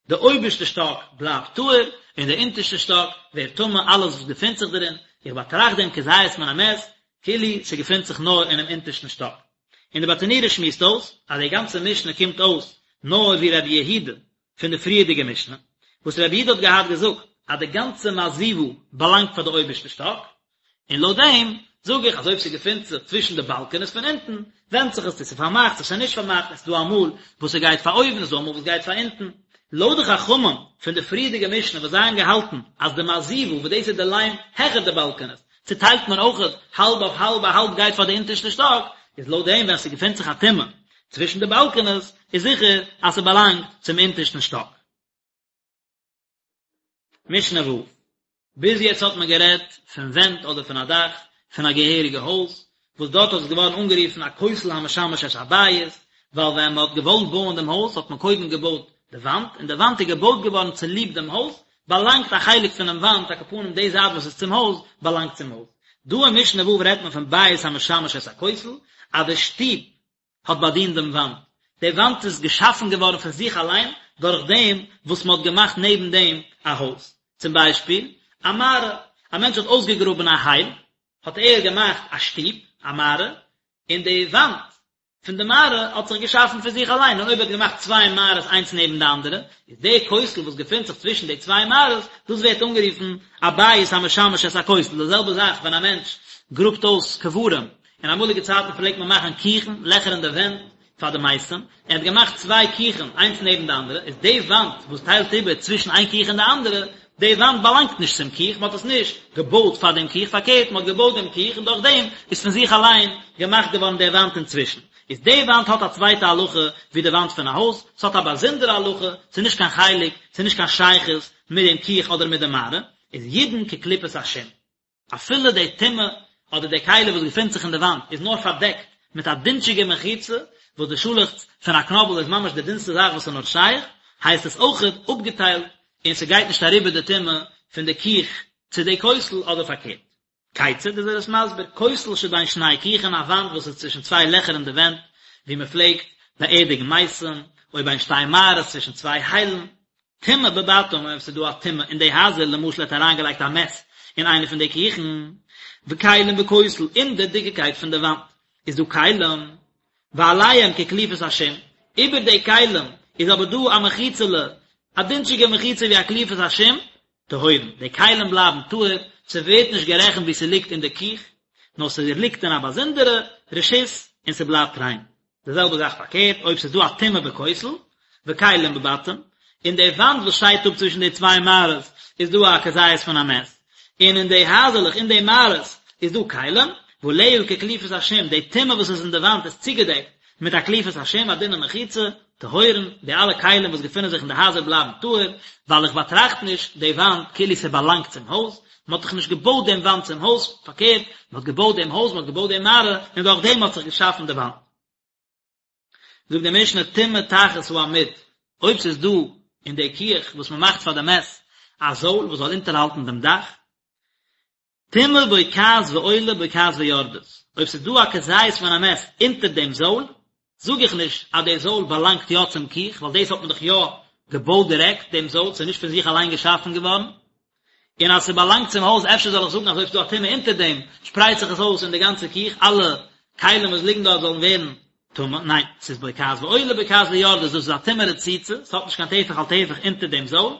די אויבערשטע שטאק בלייבט טהור, און די אונטערשטע שטאק ווערט טמא אלעס וואס געפינט זיך דערין, איך באטראכט דעם כזית מן המת, כאילו ס'געפינט זיך נאר אינעם אונטערשטן שטאק. און די ברטנורא שמועסט אויס, אז די גאנצע משנה קומט אויס נאר ווי רבי יהודה פון די פריערדיגע משנה, וואס רבי יהודה האט געהאט געזאגט אז די גאנצע מעזיבה באלאנגט פאר די אויבערשטע שטאק, און לויט דעם זאג איך אז אויב ס'געפינט זיך צווישן די באלקענעס פון אונטן, ווענדט זיך עס צו ס'איז פארמאכט צו ס'איז נישט פארמאכט, און ס'איז דא אמאל וואס ס'גייט פאר אויבן און ס'איז דא אמאל וואס גייט פאר אונטן. לויט די חכמים פון די פריערדיגע משנה וואס זיי האבן געהאלטן אז די מעזיבה וואס דאס איז די ליים העכער די באלקענעס צוטיילט מען אויכעט האלב אויף האלב א האלב גייט פאר די אונטערשטע שטאק, איז לויט דעם ווען ס'געפינט זיך א טומאה צווישן די באלקענעס איז זיכער אז ס'באלאנגט צום אונטערשטן שטאק. משנה ו'. ביז יעצט האט מען גערעדט פון ווענט אדער פון א דאך פון א געהעריגע הויז, וואס דארט האט עס געווארן אנגערופן א כותל המשמש את הבית, ווייל ווען מען האט געוואלט בויען דעם הויז האט מען קודם געבויט די וואנט, און די וואנט איז געבויט געווארן צוליב דעם הויז, באלאנגט א חלק פונעם וואנט, על כל פנים די זייט וואס איז צום הויז, באלאנגט צום הויז. דא אין משנה ו' רעדט מען פון בית המשמש את הכותל, אז די שטוב האט באדינט דעם וואנט, די וואנט איז געשאפן געווארן פון זיך אליין דורך דעם וואס מען האט געמאכט נעבן דעם א הויז. צום ביישפיל, א מערה, א מענטש האט אויסגעגראבן א הייל, האט ער געמאכט א שטוב, א מערה, און די וואנט פון די מערה האט זיך געשאפן פון זיך אליין, און אויב ער האט געמאכט צוויי מערות איינס נעבן די אנדערע, איז די כותל וואס געפינט זיך צווישן די צוויי מערות, דאס ווערט אנגערופן א בית המשמש את הכותל, די זעלבע זאך ווען א מענטש גראבט אויס קברים, אין אמאליגע צייטן פלעגט מען מאכן כוכין, לעכער אין די ווענט, פאר די מתים, ער האט געמאכט צוויי כוכין איינס נעבן די אנדערע, איז די וואנט וואס טיילט איבער צווישן איין כוך און די אנדערע, די וואנט באלאנגט נישט צום כוך, מען האט עס נישט געבויט פאר דעם כוך, פארקערט מען האט געבויט דעם כוך און דורך דעם איז פון זיך אליין געמאכט געווארן די וואנט אינצווישן. איז די וואנט האט א צווייטע הלכה ווי די וואנט פון א הויז, ס'האט א באזונדערע הלכה, ס'איז נישט קיין חלק, ס'איז נישט קיין שייכות מיט דעם כוך אדער מיט די מערה, איז ידון כקליפת השום. אפילו די טומאה אדער די כלי וואס געפינט זיך אין די וואנט איז נאר פארדעקט מיט א דינטשיגע מחיצה, וואס די שאלעכץ פון א קנאבל איז ממש די דינסטע זאך וואס איז נאר שייך, הייסט עס אויכעט אפגעטיילט און ס'גייט נישט אריבער די טומאה פון די כוך צו די כותל אדער פארקערט. כיצד איז ער עס מסביר, כותל שבין שני כוכין א וואנט וואס איז צווישן צוויי לעכער אין די ווענט וואו מ'פלעגט באערדיגן מתים, או בין שתי מערות צווישן צוויי היילן, טומאה בבתים אויב ס'איז דא א טומאה אין די הייזער למשל ער האט אריינגעלייגט א מת אין איינע פון די כוכין וכלים בכותל אין די דיקעקייט פון די וואנט איז דא כלים ועליהם כקליפת השום איבער די כלים איז אבער דא א מחיצה'לע א דינטשיגע מחיצה ווי א קליפת השום טהורין די כלים בלייבן טהור ס'ווערט נישט גערעכנט ווי ס'ליגט אין די כוך נאר ס'ליגט אין א באזונדערע רשות און ס'בלייבט ריין. די זעלבע זאך פארקערט, אויב ס'איז דא א טומאה בכותל, וכלים בבתים, אין די וואנט וואס שיידט אפ צווישן די צוויי מערות איז דא א כזית פון א מת, און אין די הייזעלעך אין די מערות איז דא כלים, ועליה כקליפת השום, די טומאה וואס איז אין די וואנט איז צוגעדעקט מיט א קליפת השום, א דינע מחיצה, טהורין, די אלע כלים וואס געפינען זיך אין די הייזער בלייבן טהור, ווייל איך באטראכט נישט די וואנט כאילו ס'באלאנגט צום הויז, מען האט דאך נישט געבויט דעם וואנט צום הויז, פארקערט, מען האט געבויט דעם הויז, מען האט געבויט די מערה, און דורך דעם האט זיך געשאפן די וואנט. זאגט די משנה טומאה תחת העמוד, אויב ס'איז דא אין די כוך וואס מען מאכט פאר די מת א זויל וואס זאל אונטערהאלטן דעם דאך, טומאה בוקעת ועולה בוקעת ויורדת, אויב ס'איז דא א כזית פון א מת אונטער דעם זויל, זאג איך נישט אז די זויל באלאנגט יא צום כוך, ווייל דאס האט מען דאך יא געבויט דירעקט, דעם זויל, ס'איז נישט פון זיך אליין געשאפן געווארן, און אז ס'באלאנגט צום הויז אפשר זאל איך זאגן אז אויב ס'איז דא א טומאה אונטער דעם, שפרייט זיך עס אויס אין די גאנצע כוך, אלע כלים וואס ליגן דארט זאלן ווערן טמא, ניין, ס'איז בוקעת ועולה בוקעת ויורדת, דאס איז א טומאה רצוצה, ס'האט נישט קיין טפח על טפח אונטער דעם זויל,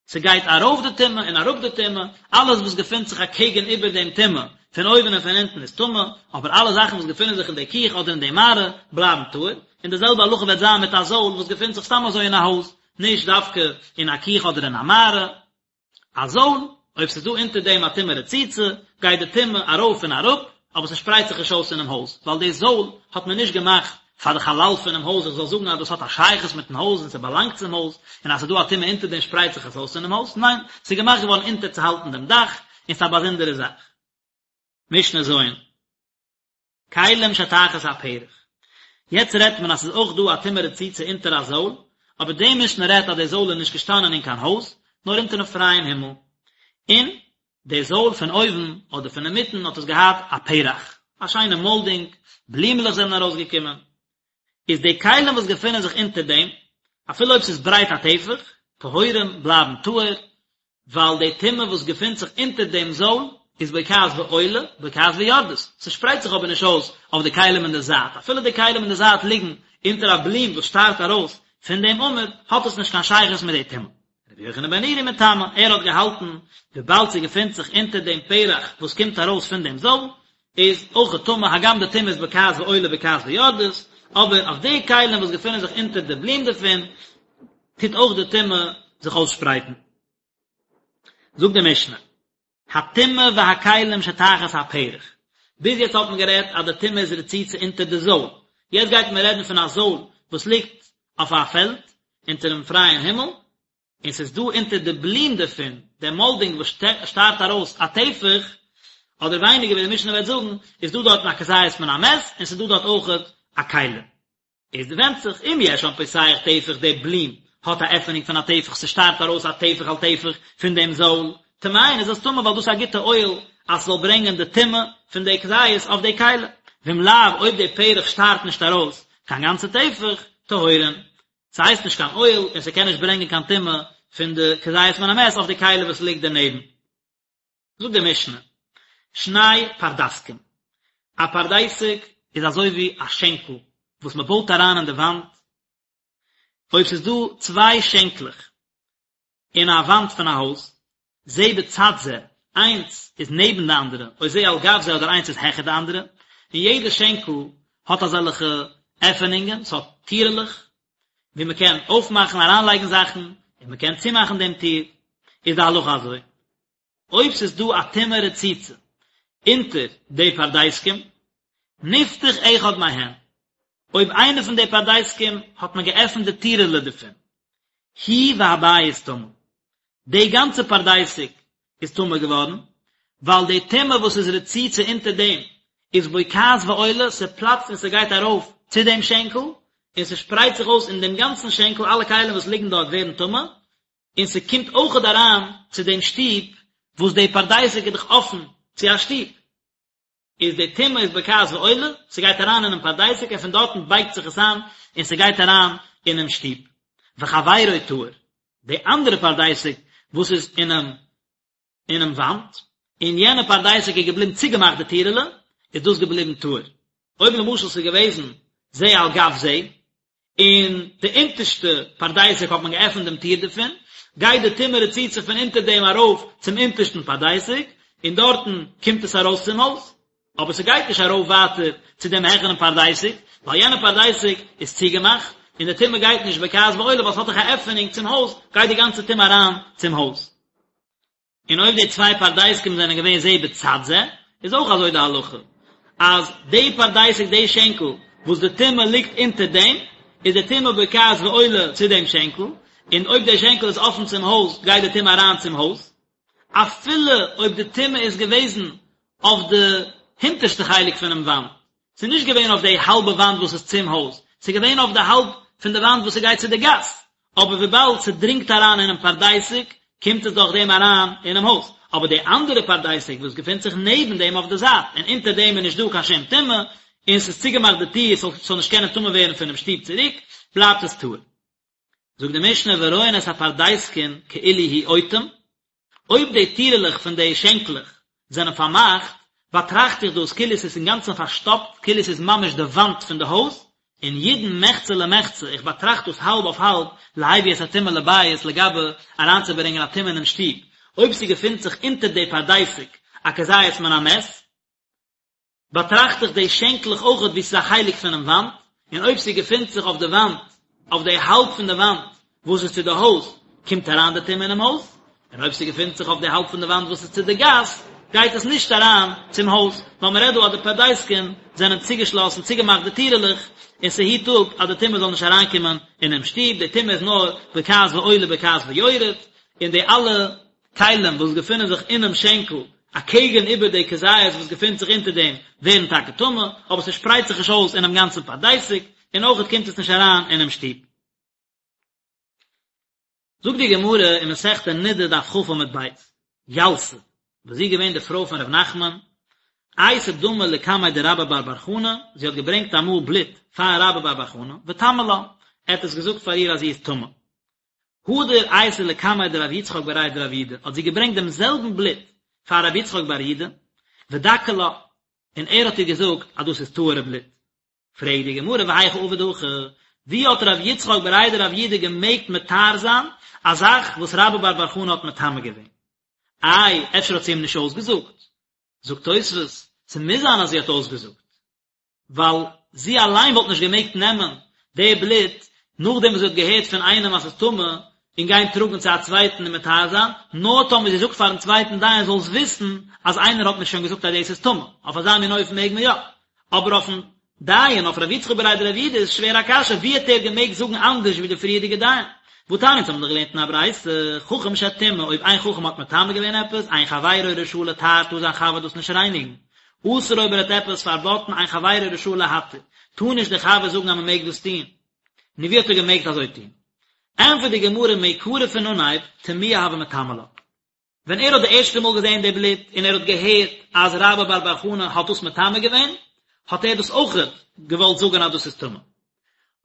ס'גייט ארויף די טומאה און אראפ די טומאה, אלעס וואס געפינט זיך אקעגן איבער דעם טומאה, פון אויבן און פון אונטן איז טמא, אבער אלע זאכן וואס געפינען זיך אין די כוך אדער אין די מערה, בלייבן טהור, און די זעלבע הלכה וועט זיין מיט א זויל וואס געפינט זיך סתם אזוי אין א הויז, נישט דווקא אין א כוך אדער אין א מערה. א זויל, אויב ס'איז דא אונטער דעם א טומאה רצוצה, גייט די טומאה ארויף און אראפ, אבער ס'שפרייט זיך נישט אויס אינעם הויז, ווייל די זויל האט מען נישט געמאכט פאר די חלל פונעם הויז, איך זאל זאגן אז דאס האט א שייכות מיטן הויז און ס'באלאנגט צום הויז, און אז ס'איז דא א טומאה אונטער דעם שפרייט זיך עס אויס אינעם הויז, ניין, ס'איז געמאכט געווארן אונטערצוהאלטן דעם דאך, און ס'איז א באזונדערע זאך. משנה ז'. כלים שתחת הפרח. יעצט רעדט מען אז ס'איז אויך דא א טומאה רצוצה אונטער א זויל, אבער די משנה רעדט אז די זויל איז נישט געשטאנען אין קיין הויז, נאר אונטערן פרייען הימל, און די זויל פון אויבן אדער פון אינמיטן האט עס געהאט א פרח, א שיינע מאלדינג, בלימעלעך זענען ארויסגעקומען. איז די כלים וואס געפינען זיך אונטער דעם, אפילו אויב ס'איז ברייט א טפח, טהורים, בלייבן טהור, ווייל די טומאה וואס געפינט זיך אונטער דעם זויל איז בוקעת ועולה, בוקעת ויורדת, ס'שפרייט זיך אבער נישט אויס אויף די כלים אין די זייט, אפילו די כלים אין די זייט ליגן אונטער א בלום וואס שטארט ארויס פון דעם עמוד, האט עס נישט קיין שייכות מיט די טומאה. רבי יוחנן בן נורי מטמא, ער האט געהאלטן וויבאלד ס'געפינט זיך אונטער דעם פרח וואס קומט ארויס פון דעם זויל, איז אויך טמא, הגם די טומאה איז בוקעת ועולה בוקעת ויורדת, אבער אויף די כלים וואס געפינען זיך אונטער די בלום דערפון, טוט אויך די טומאה זיך אויסשפרייטן. זאגט די משנה, הטומאה והכלים שתחת הפרח, ביז יעצט האט מען גערעדט אז די טומאה איז רצוצה אונטער די זויל, יעצט גייט מען רעדן פון א זויל וואס ליגט אויף א פעלד אונטערן פרייען הימל, און ס'איז דא אונטער די בלום דערפון, די מאלדינג וואס שטארט ארויס א טפח, אדער ווייניגער ווי די משנה וועט זאגן, איז דא דארטן א כזית פון א מת, און ס'איז דא דארט אויכעט א כלי. איז ווענדט זיך אם יש שם פותח טפח די בלום האט א עפענונג פון א טפח ס'שטארט ארויס א טפח על טפח פון דעם זויל, טמאין איז עס טמא ווייל דאס איז א גוטע אוהל. אז ס'זאל ברענגען די טומאה פון די כזית אויף די כלי, ואם לאו אויב די פרח שטארט נישט ארויס קיין גאנצע טפח, טהורין, ס'הייסט נישט קיין אוהל און ס'קען נישט ברענגען קיין טומאה פון די כזית מן המת אויף די כלי וואס ליגט דערנעבן. זאגט די משנה, שני פרדסקין, א פרדסק איז אזוי ווי א שענקל וואס מען בויט אריין אין די וואנט, אויב ס'איז דא צוויי שענקלעך אין א וואנט פון א הויז, זה בצד זה, איינס איז נעבן די אנדערע, או זה על גב זה אדער איינס איז העכער די אנדערע, און יעדע שענקל האט אזעלכע עפענונגען, ס'האט טירעלעך, ווי מען קען אויפמאכן אריינלייגן זאכן, און מען קען צומאכן דעם טיר, איז די הלכה אזוי. אויב ס'איז דא א טומאה רצוצה אונטער די פרדסקים, נפתח אחד מהן, אויב איינע פון די פרדסקים האט מען געעפנט די טירעלע דערפון, הוא והבית טמא, די גאנצע פרדסק איז טמא געווארן, ווייל די טומאה וואס איז רצוצה אונטער דעם איז בוקעת ועולה, ס'פלאצט און ס'גייט ארויף צו דעם שענקל, און ס'שפרייט זיך אויס אין דעם גאנצן שענקל, אלע כלים וואס ליגן דארט ווערן טמא, און ס'קומט אויכעט אריין צו דעם שטוב, וואס די פרדסק איז דאך אפן צו א שטוב, איז די טומאה איז בוקעת ועולה, ס'גייט אריין אינעם פרדסק און פון דארטן בייגט זיך עס איין און ס'גייט אריין אינעם שטוב. וחבירו טהור, די אנדערע פרדסק וואס איז אינעם אינעם וואנט, און יענע פרדסק איז געבליבן צוגעמאכט די טירעלע, איז דאס געבליבן טהור. אויב למשל ס'איז געוועזן זה על גב זה, און די אונטערשטע פרדסק האט מען געעפנט דעם טיר דערפון, גייט די טומאה רצוצה פון אונטער דעם ארויף צום אונטערשטן פרדסק, און דארטן קומט עס ארויס צום הויז. אבער ס'גייט נישט ארויף ווייטער צו דעם העכערן פרדסק, ווייל יענע פרדסק איז צוגעמאכט, און די טומאה גייט נישט בוקעת ועולה ווייל ס'האט דאך א עפענונג צום הויז, גייט די גאנצע טומאה אריין צום הויז. און אויב די צוויי פרדסקים זענען געווען זה בצד זה, איז אויך אזוי די הלכה, אז די פרדסק די שענקל וואס די טומאה ליגט אונטער דעם, איז די טומאה בוקעת ועולה צו דעם שענקל, און אויב די שענקל איז אפן צום הויז גייט די טומאה אריין צום הויז, אפילו אויב די טומאה איז געוועזן אויף די הינטערשטע חלק פונעם וואנט, ס'איז נישט געווען אויף די האלבע וואנט וואס איז צום הויז, ס'איז געווען אויף די האלב פון די וואנט וואס ס'גייט צו די גאס, אבער וויבאלד ס'דרינגט אריין אינעם פרדסק, קומט עס דורך דעם אריין אינעם הויז. אבער די אנדערע פרדסק וואס געפינט זיך נעבן דעם אויף די זייט, און אונטער דעם איז נישט דא קיין שום טומאה, און ס'איז צוגעמאכט די טיר ס'זאל נישט קענען טמא ווערן פונעם שטוב צוריק, בלייבט עס טהור. זאגט די משנה ורואין את הפרדסקין כאילו הוא אוטם, אויב די טירעלעך פון די שענקלעך זענען פארמאכט, באטראכט איך דאס כאילו עס איז אינגאנצן פארשטאפט, כאילו עס איז ממש די וואנט פון די הויז, און ידון מחצה למחצה, איך באטראכט דאס האלב אויף האלב, להביא את הטומאה לבית, לגבי אריינצוברענגען א טומאה אינעם שטוב, אויב ס'געפינט זיך אונטער די פרדסק א כזית מן המת, באטראכט איך די שענקלעך אויכעט ווי ס'איז א חלק פונעם וואנט, און אויב ס'געפינט זיך אויף די וואנט, אויף די האלב פון די וואנט וואס איז צו די הויז, קומט אריין די טומאה אינעם הויז, און אויב ס'געפינט זיך אויף די האלב פון די וואנט וואס איז צו די גאס, גייט עס נישט אריין צום הויז, ווייל מ'רעדט דא אז די פרדסקין זענען צוגעשלאסן, צוגעמאכט די טירעלעך, און ס'היט אפ אז די טומאה זאל נישט אריינקומען אינעם שטוב, די טומאה איז נאר בוקעת ועולה בוקעת ויורד, און די אלע כלים וואס געפינען זיך אינעם שענקל אקעגן איבער די כזית וואס געפינט זיך אונטער דעם ווערן טאקע טמא, אבער ס'שפרייט זיך נישט אויס אינעם גאנצן פרדסק, און אויכעט קומט עס נישט אריין אינעם שטוב. זאגט די גמרא אין מסכת נדה דף כ עמוד ב', ילתא, וואס זי איז געווען די פרוי פון ר' נחמן, אייתא דמא לקמיה דרבה בר בר חנה, זי האט געברענגט אמאל בלוט פאר רבה בר בר חנה, וטמא לה, ער האט עס געזאגט פאר איר אז זי איז טמא. הדר אייתא לקמיה דרב יצחק בריה דרב יהודה, האט זי געברענגט דעם זעלבן בלוט פאר רב יצחק בר יהודה, ודכי לה, און ער האט איר געזאגט אז דאס איז טהור'ע בלוט. פרעגט די גמרא והיכי עביד הכי, ווי האט רב יצחק בריה דרב יהודה געמעגט מטהר זיין א זאך וואס רבה בר בר חנה האט מטמא געווען? איי, אפשר האט זי אים נישט אויסגעזאגט? זאגט תוספות, ס'מוז זיין אז זי האט אויסגעזאגט. ווייל זי אליין וואלט נישט געמעגט נעמען די בלוט נאכדעם וואס זי האט געהערט פון איינעם אז ס'איז טמא און גיין טראגן צו א צווייטן און מטהר זיין, נאר טאמער זי זאגט פארן צווייטן דיין זאלסט וויסן אז איינער האט מיר שוין געזאגט אז דאס איז טמא, אויף אזא מין אופן מעג מען יא, אבער אויפן דיין, אויף ר' יצחק בריה דרב יהודה איז שווער א קשיא, ווי האט ער געמעגט זאגן אנדערש ווי די פריערדיגע דיין? והתניא אונז האבן דאך געלערנט אין א ברייתא, חכם שטימא, אויב איין חכם האט מטמא געווען עפעס, אין חברו רשאי לטהר טאר זיין חבר דאס נישט רייניגן, אסר אויב ער האט עפעס פארבאטן אין חברו רשאי להתיר, טאר נישט דער חבר זאגן אז מען מעג דאס טון. נו ווי האט ער געמעגט אזוי טון? ענטפערט די גמרא מעיקרא פון אנהייב, טמויי הוה מטמא לה. ווען ער האט די ערשטע מאל געזען די בלוט און ער האט געהערט אז רבה בר בר חנה האט דאס מטמא געווען, האט ער דאס אויכעט געוואלט זאגן אז דאס איז טמא.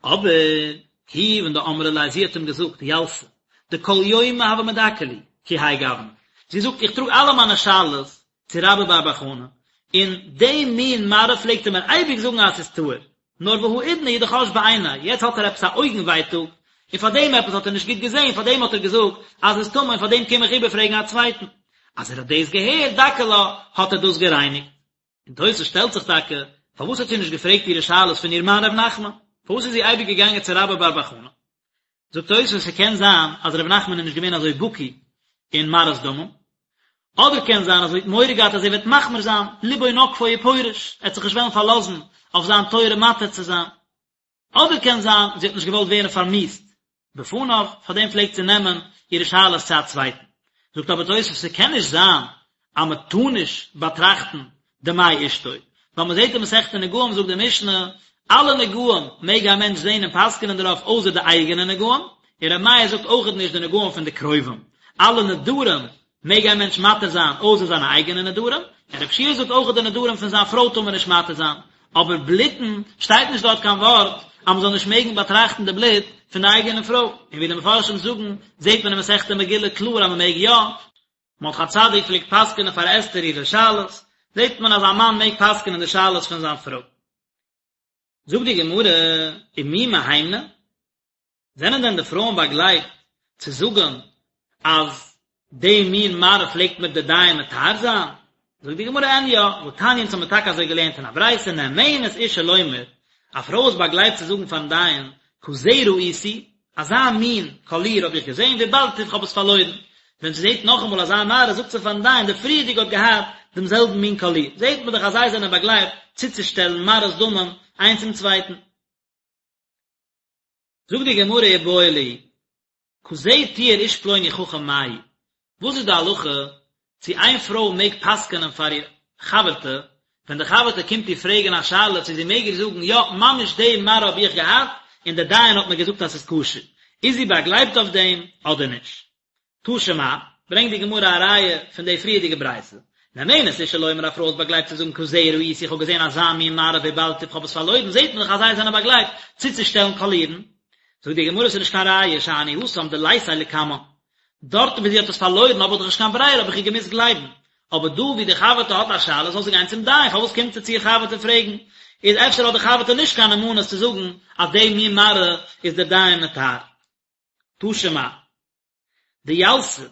אבער כיוון דאמרה ליה זי האט אים געזאגט ילתא דכל יומא הוה מדכא לי כי האי גוונא, זי זאגט איך טראג אלע מיינע שאלות צו רבה בר בר חנה, און די מין מראה פלעגט ער מיר אייביג זאגן אז ס'איז טהור, נאר והאידנא הוא דחש בעיניה, יעצט האט ער עפעס א אויגן ווייטאג, און פאר דעם עפעס האט ער נישט גוט געזען, פאר דעם האט ער געזאגט אז ס'איז טמא און פאר דעם קום איך איבערפרעגן א צווייטן. אז ער האט דאס געהערט, דכא לה, האט ער דאס גערייניגט. און תוס' שטעלט זיך טאקע, פארוואס האט זי נישט געפרעגט אירע שאלות פון איר מאן ר' נחמן? פארוואס איז זי אייביג געגאנגען צו רבה בר בר חנה? זאגט תוס' ס'קען זיין אז ר' נחמן איז נישט געווען אזוי בקי אין מראות דמים, אדער קען זיין אז זי האט מורא געהאט אז ער וועט מחמיר זיין, ליבו נוקפו ופורש, ער וועט זיך נישט וועלן פארלאזן אויף זיין תורה מתיר צו זיין. אדער קען זיין זי האט נישט געוואלט ווערן פארמיאוסט בפניו, פארדעם פלעגט זי נעמען אירע שאלות צו א צווייטן. זאגט אבער תוספות ס'קען נישט זיין אז מען טאר נישט באטראכטן דמי אשתו, ווייל מען זעט אין מסכת נגעים זאגט די משנה, אלע נגעים מעג א מענטש זען און פסק'נען דערויף אויסער די אייגענע נגעים, און ר' מאיר זאגט אויכעט נישט די נגעים פון די קרובים, אלע נדרים מעג א מענטש מתיר זיין אויסער זיינע אייגענע נדרים, און רב שיע זאגט אויך די נדרים פון זיין פרוי טאר מען נישט מתיר זיין, אבער בלוטן שטייט נישט דארט קיין ווארט אז מען זאל נישט מעגן באטראכטן די בלוט פון די אייגענע פרוי, און ווי די מפרשים זאגן זעט מען אין מסכת מגילה קלאר אז מען מעג יא, מרדכי הצדיק פלעגט פסק'נען פאר אסתר אירע שאלות, זעט מען אז א מאן מעג פסק'נען די שאלות פון זיין פרוי. זאגט די גמרא, ומי מהימני? זענען דען די פרויען באגלייבט צו זאגן אז די מין מראה פלעגט מיר די דיין מטהר זיין? זאגט די גמרא אין יא, והתניא אונז האמיר טאקע אזוי געלערנט אין א ברייתא נאמנת אשה לומר, א פרוי איז באגלייבט צו זאגן פארן דיין, כזה ראיתי, אזא מין קאליר האב איך געזען, ואבדתיו איך האב עס פארלוירן. ווען זי זעט נאכאמאל אזא מראה זאגט זי פארן דיין, די פריערדיגע האט געהאט דעם זעלבן מין קאליר. זעט מען דאך אז זיי זענען באגלייבט צוצושטעלן מראות דמים איינס צום צווייטן. זאגט די גמרא איבעיא להו, כזה טיהר איש פלוני חכם מהו, וואס איז די הלכה צו איין פרוי מעג פסק'נען פאר איר חבר'טע, ווען די חבר'טע קומט איר פרעגן א שאלה צו זי מעג איר זאגן יא ממש די מראה האב איך געהאט און די דיין האט מיר געזאגט אז ס'איז כשר, איז זי באגלייבט אויף דעם אדער נישט? תא שמע, ברענגט די גמרא א ראיה פון די פריערדיגע ברייתא, נאמנת אשה לומר א פרוי איז באגלייבט צו זאגן כזה ראיתי איך האב געזען אזא מין מראה ואבדתיו איך האב עס פארלוירן זעט מען דאך אז זיי זענען באגלייבט צוצושטעלן קאלירן, זאגט די גמרא ס'איז נישט קיין ראיה שאני התם דליתיה לקמן, דארטן ווי זי האט עס פארלוירן האב איך דאך נישט קיין ברירה האב איך איר געמוזט גלייבן, אבער דא ווי די חבר'טע האט א שאלה זאל זי גיין צום דיין פארוואס קומט זי צו איר חבר'טע פרעגן, איז אפשר האט די חבר'טע נישט קיין נאמנות צו זאגן אז די מין מראה איז דער דיין מטהר. תא שמע. דילתא,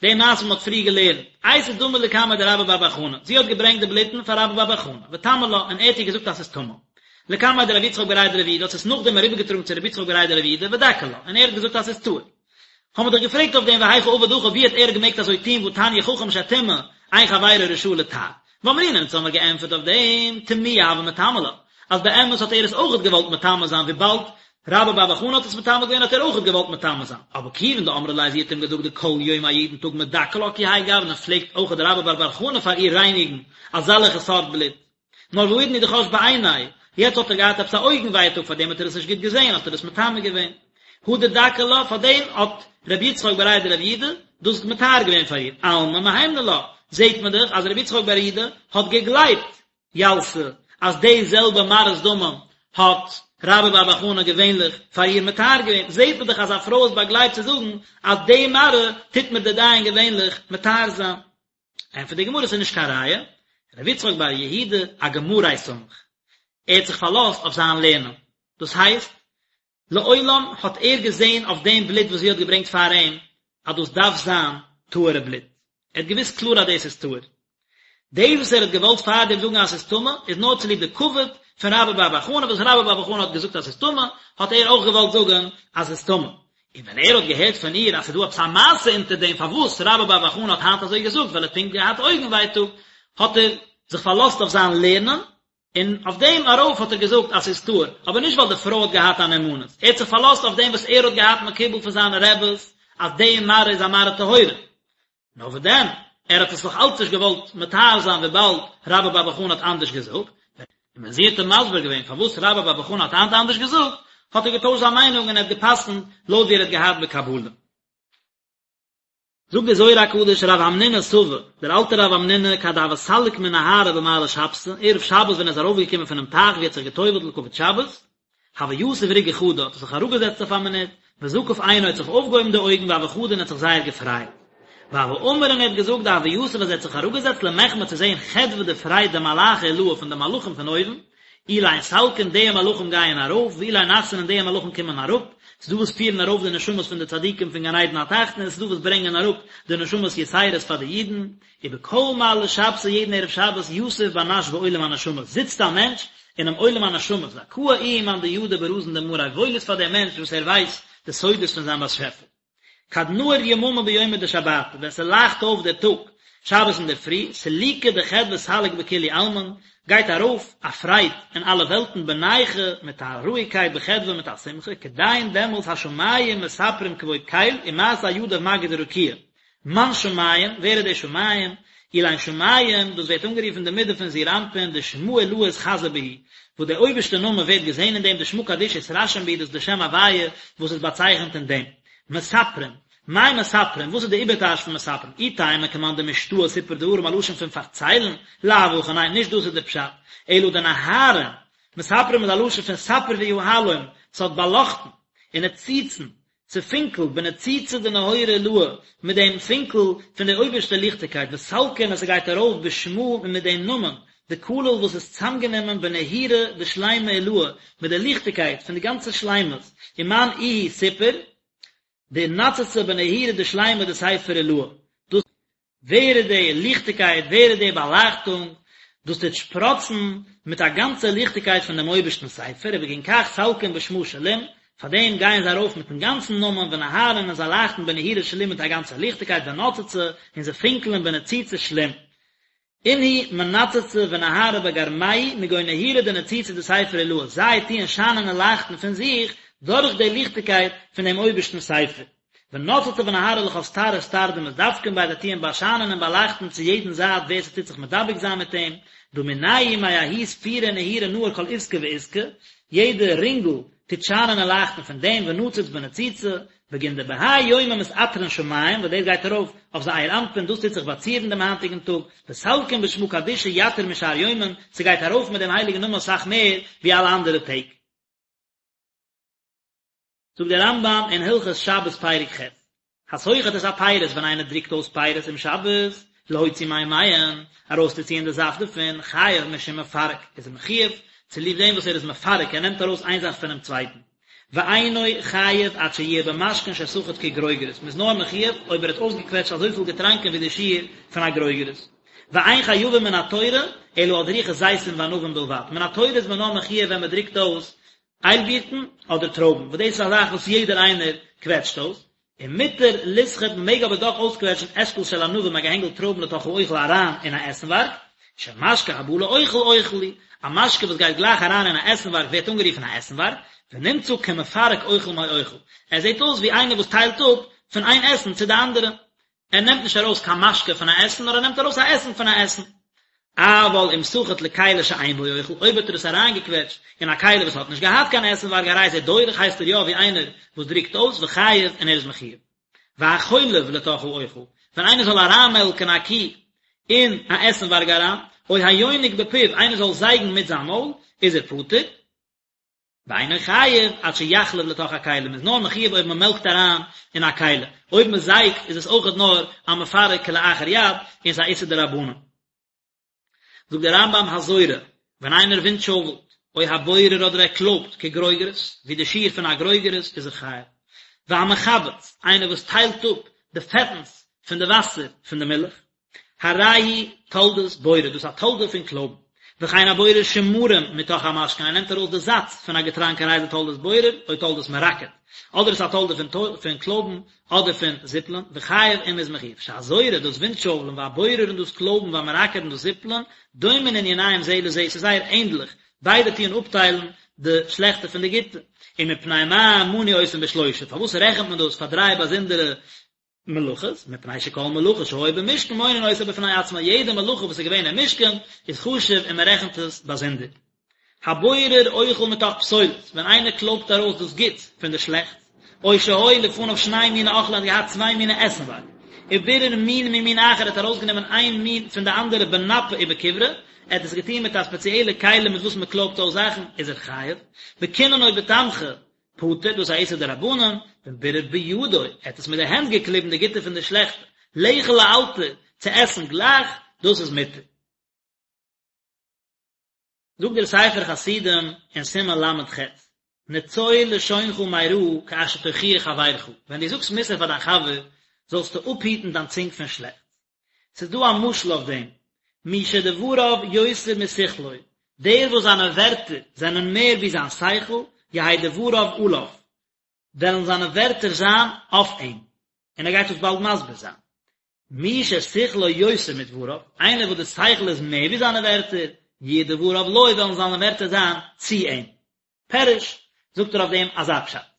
די מעשה וואס מ'האט פריער געלערנט, אייתא דמא לקמיה דרבה בר בר חנה, זי האט געברענגט די בלוטן פאר רבה בר בר חנה, וטמא לה, און ער האט איר געזאגט אז ס'איז טמא. לקמיה דרב יצחק בריה דרב יהודה האט עס נאכדעם אריבערגעטראגן צו רב יצחק בריה דרב יהודה ודכי לה, און ער האט געזאגט אז ס'איז טהור. האבן מיר דאך געפרעגט אויף דעם והיכי עביד הכי ווי האט ער געמעגט אזוי טון והתניא חכם שטימא אין חברו רשאי לטהר. ואמרינן אונז האמיר געענטפערט אויף דעם טמויי הוה מטמא לה, אז באמת האט ער עס אויכעט געוואלט מטמא זיין וויבאלד רבה בר בר חנה האט עס מטמא געווען האט ער אויכעט געוואלט מטמא זיין, אבער כיוון דאמרה ליה זי האט אים געזאגט דכל יומא יעדן טאג מדכא לה כי האי גוונא פלעגט אויכעט רבה בר בר חנה פאר איר רייניגן אזאלעכע סארט בלוט. נאר והאידנא הוא דחש בעיניה, יעצט האט ער געהאט עפעס א אויגן ווייטאג פאר דעם האט ער עס נישט גוט געזען האט ער עס מטמא געווען. הדר דכי לה, פאר דעם האט רבי יצחק בריה דרב יהודה דאס מטהר געווען פאר איר, אלמא מהימנא לה, זעט מען דאך אז רבי יצחק בר יהודה האט געגלייבט ילתא אז די זעלבע מראות דמים האט רבה בר בר חנה געווענליך פאר איר מטהר געווען, זעט מען דאך אז א פרוי איז באגלייבט צו זאגן אז די מראה טוט מיר די דיין געווענליך מטהר זיין. ענטפערט די גמרא ס'איז נישט קיין ראיה, רבי יצחק בר יהודה אגמריה סמיך, ער האט זיך פארלאזט אויף זיין לערנען, דאס הייסט, לעולם האט ער געזען אויף דעם בלוט וואס זי האט געברענגט פאר אים, אז דאס דארף זיין טהור'ע בלוט, ער האט געוואוסט קלאר אז דאס איז טהור. דאס וואס ער האט געוואלט פארדעם זאגן אז ס'איז טמא, איז נאר צוליב די כבוד פון רבה בר בר חנה, וואס רבה בר בר חנה האט געזאגט אז ס'איז טמא, האט ער אויך געוואלט זאגן אז ס'איז טמא. און ווען ער האט געהערט פון איר אז ס'איז דא עפעס א מעשה אונטער דעם פארוואס רבה בר בר חנה האט היינט אזוי געזאגט ווייל ער האט פונקט געהאט אויגן ווייטאג, האט ער זיך פארלאזט אויף זיין לערנען, און אויף דעם ארויף האט ער געזאגט אז ס'איז טהור, אבער נישט ווייל די פרוי האט געהאט א נאמנות, ער האט זיך פארלאזט אויף דעם וואס ער האט געהאט מקובל פון זיינע רעבעס אז די מראה איז א מראה טהורה. נאר וואס דען, ער האט עס נאך אלץ נישט געוואלט מטהר זיין וויבאלד רבה בר בר חנה האט אנדערש געזאגט, און ווען זי האט אים מסביר געווען פארוואס רבה בר בר חנה האט היינט אנדערש געזאגט, האט ער געטוישט זיין מיינונג און ער האט גע'פסק'נט לויט ווי ער האט געהאט בקבלה. זאגט דער זוהר הקדוש רב המנונא סבא, דער אלטער רב המנונא כד הוה סליק מן נהרא במעלי שבתא, ערב שבת ווען ער איז ארויפגעקומען פונעם טייך ווי ער האט זיך גע'טובל'ט לכבוד שבת, הוה יתיב רגעא חדא, האט ער זיך אראפגעזעצט אויף א מינוט, וזקיף עינוי האט זיך אויפגעהויבן די אויגן והוה חדי און האט זיך זייער געפרייט. והוה אמר און ער האט געזאגט דהוה יתיב אז ער האט זיך אראפגעזעצט למחמי צו זעהן חדוה די פרייד דמלאכי עילאה פון די מלאכים פון אויבן, אלין סלקין די מלאכים גייען ארויף, ואלין נחתין און די מלאכים קומען אראפ, ס'איז דא וואס פירן ארויף די נשמות פון די צדיקים פון גן עדן התחתון און ס'איז דא וואס ברענגען אראפ די נשמות יתירות פאר די אידן, ובכל מעלי שבתא יעדן ערב שבת יתיב בר נש בעולם הנשמות זיצט א מענטש אינעם עולם הנשמות זכאה איהו מאן דידע ברזין דמאריה וואויל איז פאר דעם מענטש וואס ער ווייסט די סודות פון זיין באשעפער. כד נהיר יממא ביומא דשבתא, ווען ס'לייכט אויף דער טאג, שבת אינדערפרי, סלוקא דחדוה סליק בכולהו עלמין, גייט ארויף א פרייד אין אלע וועלטן בנייחא מיט א רואיגקייט בחדוה מיט א שמחה, כדין דעמאלס השמים מספרים כבוד קל ומעשה ידיו מגיד רקיע, מאן שמים, ווער איז די שמים? אלין שמים, דאס ווערט אנגערופן די מידה פון זעיר אנפין, דשמא עילאה אתחזי בהו, וואס דער אויבערשטער נאמען ווערט געזען אין דעם, דשמא קדישא אתרשים בהו, דאס איז די שם הוויה וואס איז באצייכנט אין דעם. מספרים, מאי מספרים, וואס איז די איבערטייטש פון מספרים? אי תימא כמאן דמשתעי סיפור דברים א לשון פון פארציילן, לאו הכי ניין, נישט דאס איז די פשט, אלא דנהרין, מספרים איז א לשון פון ספר ויהלום, ס'האט באלאכטן, ונציצין, ס'פינקלט בניצוצא דנהורא עילאה, מיט דעם פינקל פון די אויבערשטע ליכטיגקייט, וסלקין און ס'גייט ארויף בשמא און מיט דעם נאמען, דכליל וואס איז צאמגענומען בנהירו דשלימא עילאה, מיט די ליכטיגקייט פון די גאנצע שלימות, ומאן איהו סיפור, דנצצי בנהירו דשלימא דספר עילאה, דאס. ווער איז די ליכטיגקייט, ווער איז די באלייכטונג, דאס טוט שפראצן מיט א גאנצע ליכטיגקייט פון דעם אויבערשטנ'ס ספר, ובגין כך סלקין בשמא שלים, פאר דעם גייען זיי ארויף מיט'ן גאנצן נאמען, ונהרין און זיי לייכטן בנהירו שלים מיט א גאנצע ליכטיגקייט, ונצצי, און זיי פינקלען בניצוצא שלים. אינהו מנצצי ונהרי בגרמייהו מגו נהירו דניצוצא דספר עילאה, זיי טוען שיינען און לייכטן פון זיך דורך די ליכטיגקייט פון דעם אויבערשטנ'ס ספר. ונצצי ונהרי לכל סטר וסטר דמתדבקין ביה זיי טוען באשיינען און באלייכטן צו יעדן זייט ווער ס'טוט זיך מדבק זיין מיט אים, דהא מינייהו מההוא ספירא ונהירו נהיר כל עסקא ועסקא, יעדע רינגל טוט שיינען און לייכטן פון דעם ונציץ בניצוצא, בגין דבהאי יומא מתעטרין שמים, וואס דאס גייט ארויף אויף זעיר אנפין, דאס טוט זיך באצירן דעם היינטיגן טאג, וסלקין בשמא קדישא יתיר משאר יומין, ס'גייט ארויף מיט דעם הייליגן נאמען אסאך מער ווי אלע אנדערע טעג. זאגט דער רמב"ם אין הלכות שבת פרק ח', הסוחט את הפירות ווען איינער דרוקט אויס פירות אום שבת, להוציא מימיהן, ארויסצוציען די זאפט דערפון, חייב משום מפרק, איז ער מחויב צוליב דעם וואס ער איז מפרק, ער נעמט ארויס איין זאך פונעם צווייטן. ואינו חייב עד שיהיה במשקין שסחט כגרוגרת, מ'איז נאר מחויב אויב ער האט אויסגעקוועטשט אזויפיל געטראנקען ווי די שיעור פון א גרוגרת. ואין חייבים מן התורה אלא על דריכת זיתים וענבים בלבד, מן התורה איז מען נאר מחויב ווען מ'דרוקט אויס איילבירטן אדער טרויבן, וואס דאס איז א זאך וואס יעדער איינער קוועטשט אויס, ומותר לסחוט מען מעג אבער דאך אויסקוועטשן אשכול של ענבים א געהענגל טרויבן לתוך האוכל אריין אין א עסנווארג, שמשקה הבא לאוכל אוכל הוא, א משקה וואס גייט גלייך אריין אין א עסנווארג ווערט אנגערופן א עסנווארג, ונמצא כמפרק אוכל מאוכל, ער זעט אויס ווי איינער וואס טיילט אפ פון איין עסן צו די אנדערע, ער נעמט נישט ארויס קיין משקה פון א עסן, נאר ער נעמט ארויס א עסן פון א עסן. אבל אם סחט לכלי שאין בו אוכל, אויב האט ער עס אריינגעקוועטשט אין א כלי וואס האט נישט געהאט קיין עסנווארג הרי זה דורך הייסט ער יא ווי איינער וואס דרוקט אויס וחייב און ער איז מחויב. והחולב לתוך האוכל, ווען איינער זאל אריינמעלקן א קי אין א עסנווארג אריין, או היונק בפיו, איינער זאל זייגן מיט זיין מויל, איז ער פטור. ואינו חייב עד שיחלב לתוך הכלי, מ'איז נאר מחויב אויב מ'מעלקט אריין אין א כלי, אויב מ'זייגט איז עס אויכעט נאר א מפרק כלאחר יד און ס'איז א איסור דרבנן. זאגט דער רמב"ם הזורה, ווען איינער ווינטשויפלט, או הבורר אדער ער קלויבט כגרוגרת, ווי די שיעור פון א גרוגרת, איז ער חייב. והמחבץ, איינער וואס טיילט אפ די פעטנס פון די וואסער פון די מילך, הרי הוא תולדת בורר, דאס איז א תולדה פון קלויבן. וכן הבורר שמרים מתוך המשקין, ער נעמט ארויס די זאץ פון א געטראנק הרי זה תולדת בורר, או תולדת מרקד. אדער עס איז א תולדה פון קלויבן, אדער פון זיפלען, וחייב און מ'איז מחויב. שהזורה, דאס ווינטשויפלען, והבורר און דאס קלויבן, והמרקד און דאס זיפלען, דומין עניניהם זה לזה, ס'איז זייער ענדליך, ביידע טוען אפטיילן די שלעכטע פון די גוטע. ומפני מה מנו אותן בשלושה, פארוואס רעכנט מען דאס פאר דריי באזונדערע מלאכות, מפני שכל מלאכה שהיה במשכן מונין אותה בפני עצמה, יעדע מלאכה וואס איז געווען אין משכן איז חשוב און מען רעכנט עס באזונדער. הבורר אוכל מתוך פסולת, ווען איינער קלויבט ארויס דאס גוטס פון די שלעכטס, או שהיו לפניו שני מיני אוכלים, ער האט געהאט צוויי מיני עסנווארג. ובירר מין ממין אחר ער האט ארויסגענומען איין מין פון די אנדערע בנפה ובכברה, ער האט עס געטון מיט א ספעציעלע כלי מיט וואס מען קלויבט אויס זאכן, איז ער חייב, בקינון או בתמחוי, פטור, דאס איז א איסור דרבנן, ואם בירר בידו, ער האט עס מיט די הענט געקליבן די גוטע פון די שלעכטע, לאכול לאלתר, צו עסן גלייך, דאס איז מותר. זאגט דער ספר חסידים אין סימן ל"ח, נצור לשונך מרעה כאשר תוכיח חברך, ווען דו זאגסט מוסר פאר דיין חבר, זאלסטו אפהיטן דיין צונג פון שלעכטס. ס'איז דא א משל אויף דעם, מי שדבריו יותר משכלו, דער וואס זיינע ווערטער זענען מער ווי זיין שכל, יהא דבריו עליו, וועלן זיינע ווערטער זיין אויף אים. און ער גייט דאס באלד מסביר זיין. מי ששכלו יותר מדבריו, איינער וואס די שכל איז מער ווי זיינע ווערטער, יהיו דבריו לו, וועלן זיינע ווערטער זיין צו אים. פירוש, זאגט ער אויף דעם אזא פשט.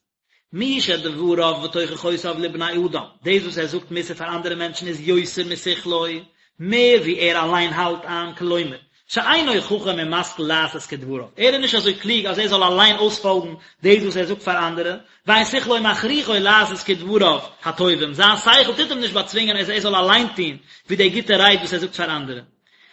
מי שדבריו ותוכחותיו לבני אדם, דאס וואס ער זאגט מוסר פאר אנדערע מענטשן איז יותר משכלו, מער ווי ער אליין האלט איין, כלומר, שאינו חכם ומשכיל לעשות כדבריו, ער איז נישט אזוי קלוג אז ער זאל אליין אויספאלגן דאס וואס ער זאגט פאר אנדערע, ואין שכלו מכריחו לעשות כדבריו הטובים, זיין שכל טוט אים נישט באצווינגען אז ער זאל אליין טון ווי די גוטע רייד וואס ער זאגט פאר אנדערע.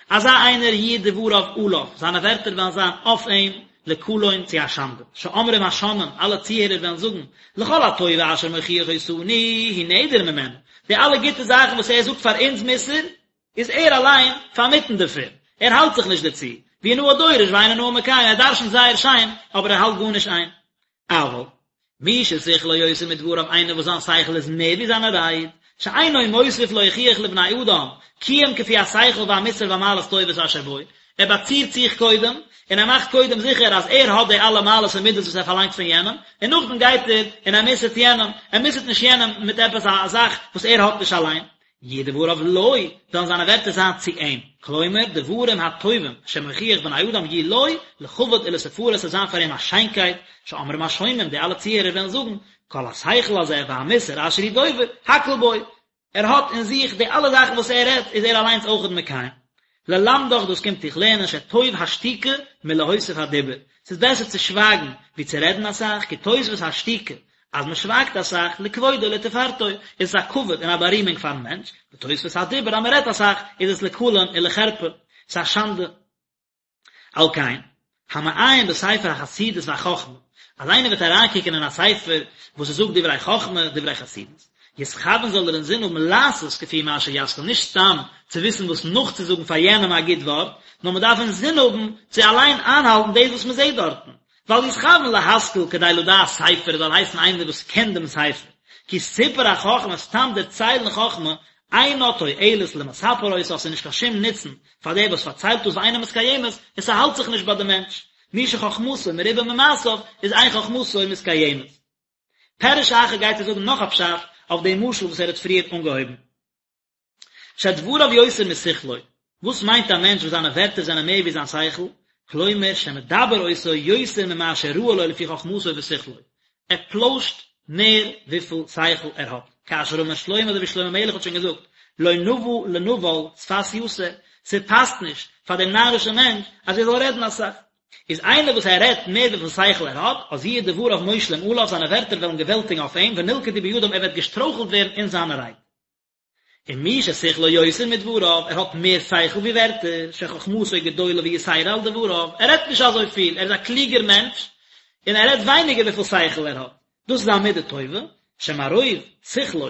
אזא איינער יהיו דבריו עליו, זיינע ווערטער וועלן זיין אויף אים, לקלון צו א שאנדע, שאומרים השומעים, אלע צוהערער וועלן זאגן, לכל הטובה אשר מוכיח אותנו הוא נעדר ממנה, די אלע גוטע זאכן וואס ער זאגט פאר אונז מוסר, איז ער אליין פארמיטן דערפון, ער האלט זיך נישט דערצו, והוא נאה דורש ואינו נאה מקיים, ער דרשנ'ט זייער שיין, אבער ער האלט גארנישט איין. אבל, מי ששכלו יותר מדבריו איינער וואס זיין שכל איז מער ווי זיינע רייד, שאינו מוסיף להוכיח לבני אדם, כי אם כפי השכל והמוסר והמעלות טובות אשר בו, ער באצירט זיך קודם, און ער מאכט קודם זיכער אז ער האט די אלע מעלות און מידות וואס ער פארלאנגט פון יענעם, און נאכדעם גייט ער און ער מוסר'ט יענעם, ער מוסר'ט נישט יענעם מיט עפעס א זאך וואס ער האט נישט אליין. יהיו דבריו לו, וועלן זיינע ווערטער זיין צו אים, כלומר, דברים הטובים שמוכיח בני אדם יהיו לו, לכבוד ולתפארת ס'וועט זיין פאר אים א שיינקייט, שאומרים השומעים, די אלע צוהערער וועלן זאגן, כל השכל הזה והמוסר אשר הוא דובר, הכל בו, ער האט אין זיך די אלע זאכן וואס ער רעדט, איז ער אליינס אויכעט מקיים. ללמדך דאס קומט דיך לערנען שטוב השתיקה מלהוסיף הדיבור, ס'איז בעסער צו שווייגן ווי צו רעדן אסאך, כי תוספות השתיקה, אז מען שווייגט אסאך, לכבודו ולתפארתו, איז עס א כבוד און א בארימונג פארן מענטש, ותוספות הדיבור אז מען רעדט אסאך, איז עס לקלון ולחרפה, ס'איז א שאנדע. על כן, המעיין בספר החסידות והחכמה, אז איינער וועט אריינקוקען אין א ספר וואס עס זאגט דברי חכמה, דברי חסידות, יתכוון זאל ער אינזין האבן לעשות כפי מה שישכיל, נישט סתם צו וויסן וואס נאכצוזאגן פאר יענעם א גוט ווארט, נאר מען דארף אינזין האבן צו אליין איינהאלטן דאס וואס מען זעט דארטן, ואל יתכוון להשכיל כדי לדעת ספר זאל הייסן איינער וואס קען דעם ספר, כי סיפור החכמה סתם דערציילן חכמה אינה תועלת למספר אותה ס'איז נישט קיין שום נוצן פאר דער וואס פארציילט דאס ואינה מתקיימת און ס'האלט זיך נישט ביי די מענטש, מי שחכמתו מרובה ממעשיו איז אין חכמתו מתקיימת. פירוש אחר גייט ער זאגן נאך א פשט אויף דעם משל וואס ער האט פריער אנגעהויבן. שדבריו יותר משכלו, וואס מיינט א מענטש וואס זיינע ווערטער זענען מער ווי זיין שכל, כלומר שמדבר אותו יותר ממה שראוי לו לפי חכמתו ושכלו, ער פלוישט מער וויפיל שכל ער האט, כאשר אמר שלמה אזוי ווי שלמה המלך האט שוין געזאגט, לא נאוה לנבל שפת יתר, ס'פאסט נישט פאר דעם נארישן מענטש אז ער זאל רעדן אסאך. איז איינער וואס ער רעדט מער וויפיל שכל ער האט, אז יהיו דבריו מושלים עליו, זיינע ווערטער וועלן געוועלטיגן אויף אים, ונלכדו בידם ער וועט געשטרויכלט ווערן אין זיינע רייד. און מי ששכלו יותר מדבריו, ער האט מער שכל ווי ווערטער, שחכמתו גדולה ויתירה על דבריו, ער רעדט נישט אזוי פיל, ער איז א קלוגער מענטש, און ער רעדט ווייניגער וויפיל שכל ער האט, דאס איז א מידה טובה, שמרוב שכלו,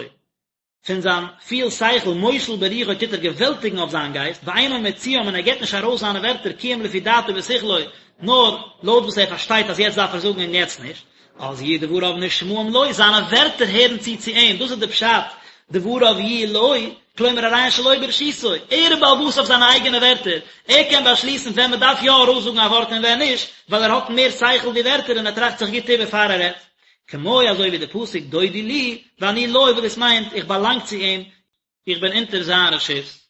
פון זיין פיל שכל, מושל ברוחו טוט ער געוועלטיגן אויף זיין גייסט, ואינו מוציאם און ער געבט נישט ארויס זיינע ווערטער כי אם לפי דעתו ושכלו, נאר לויט וואס ער פארשטייט אז יעצט דארף ער זאגן און יעצט נישט. אז יהיו דבריו נשמעים לו, זיינע ווערטער הערן צו צו אים, דאס איז די פשט, דבריו יהיו לו, כלומר הרי הן שלו ברשותו, ער איז בעל הבית אויף זיינע אייגענע ווערטער, ער קען באשליסן ווען מען דארף יא ארויסזאגן א ווארט און ווען נישט, ווייל ער האט מער שכל ווי ווערטער און ער טראכט זיך גוט איבער פאר ער רעדט. כמו אזוי ווי די פסוק דודי לי ואני לו וואס דאס מיינט איך באלאנג צו אים, איך בין אונטער זיין רשות.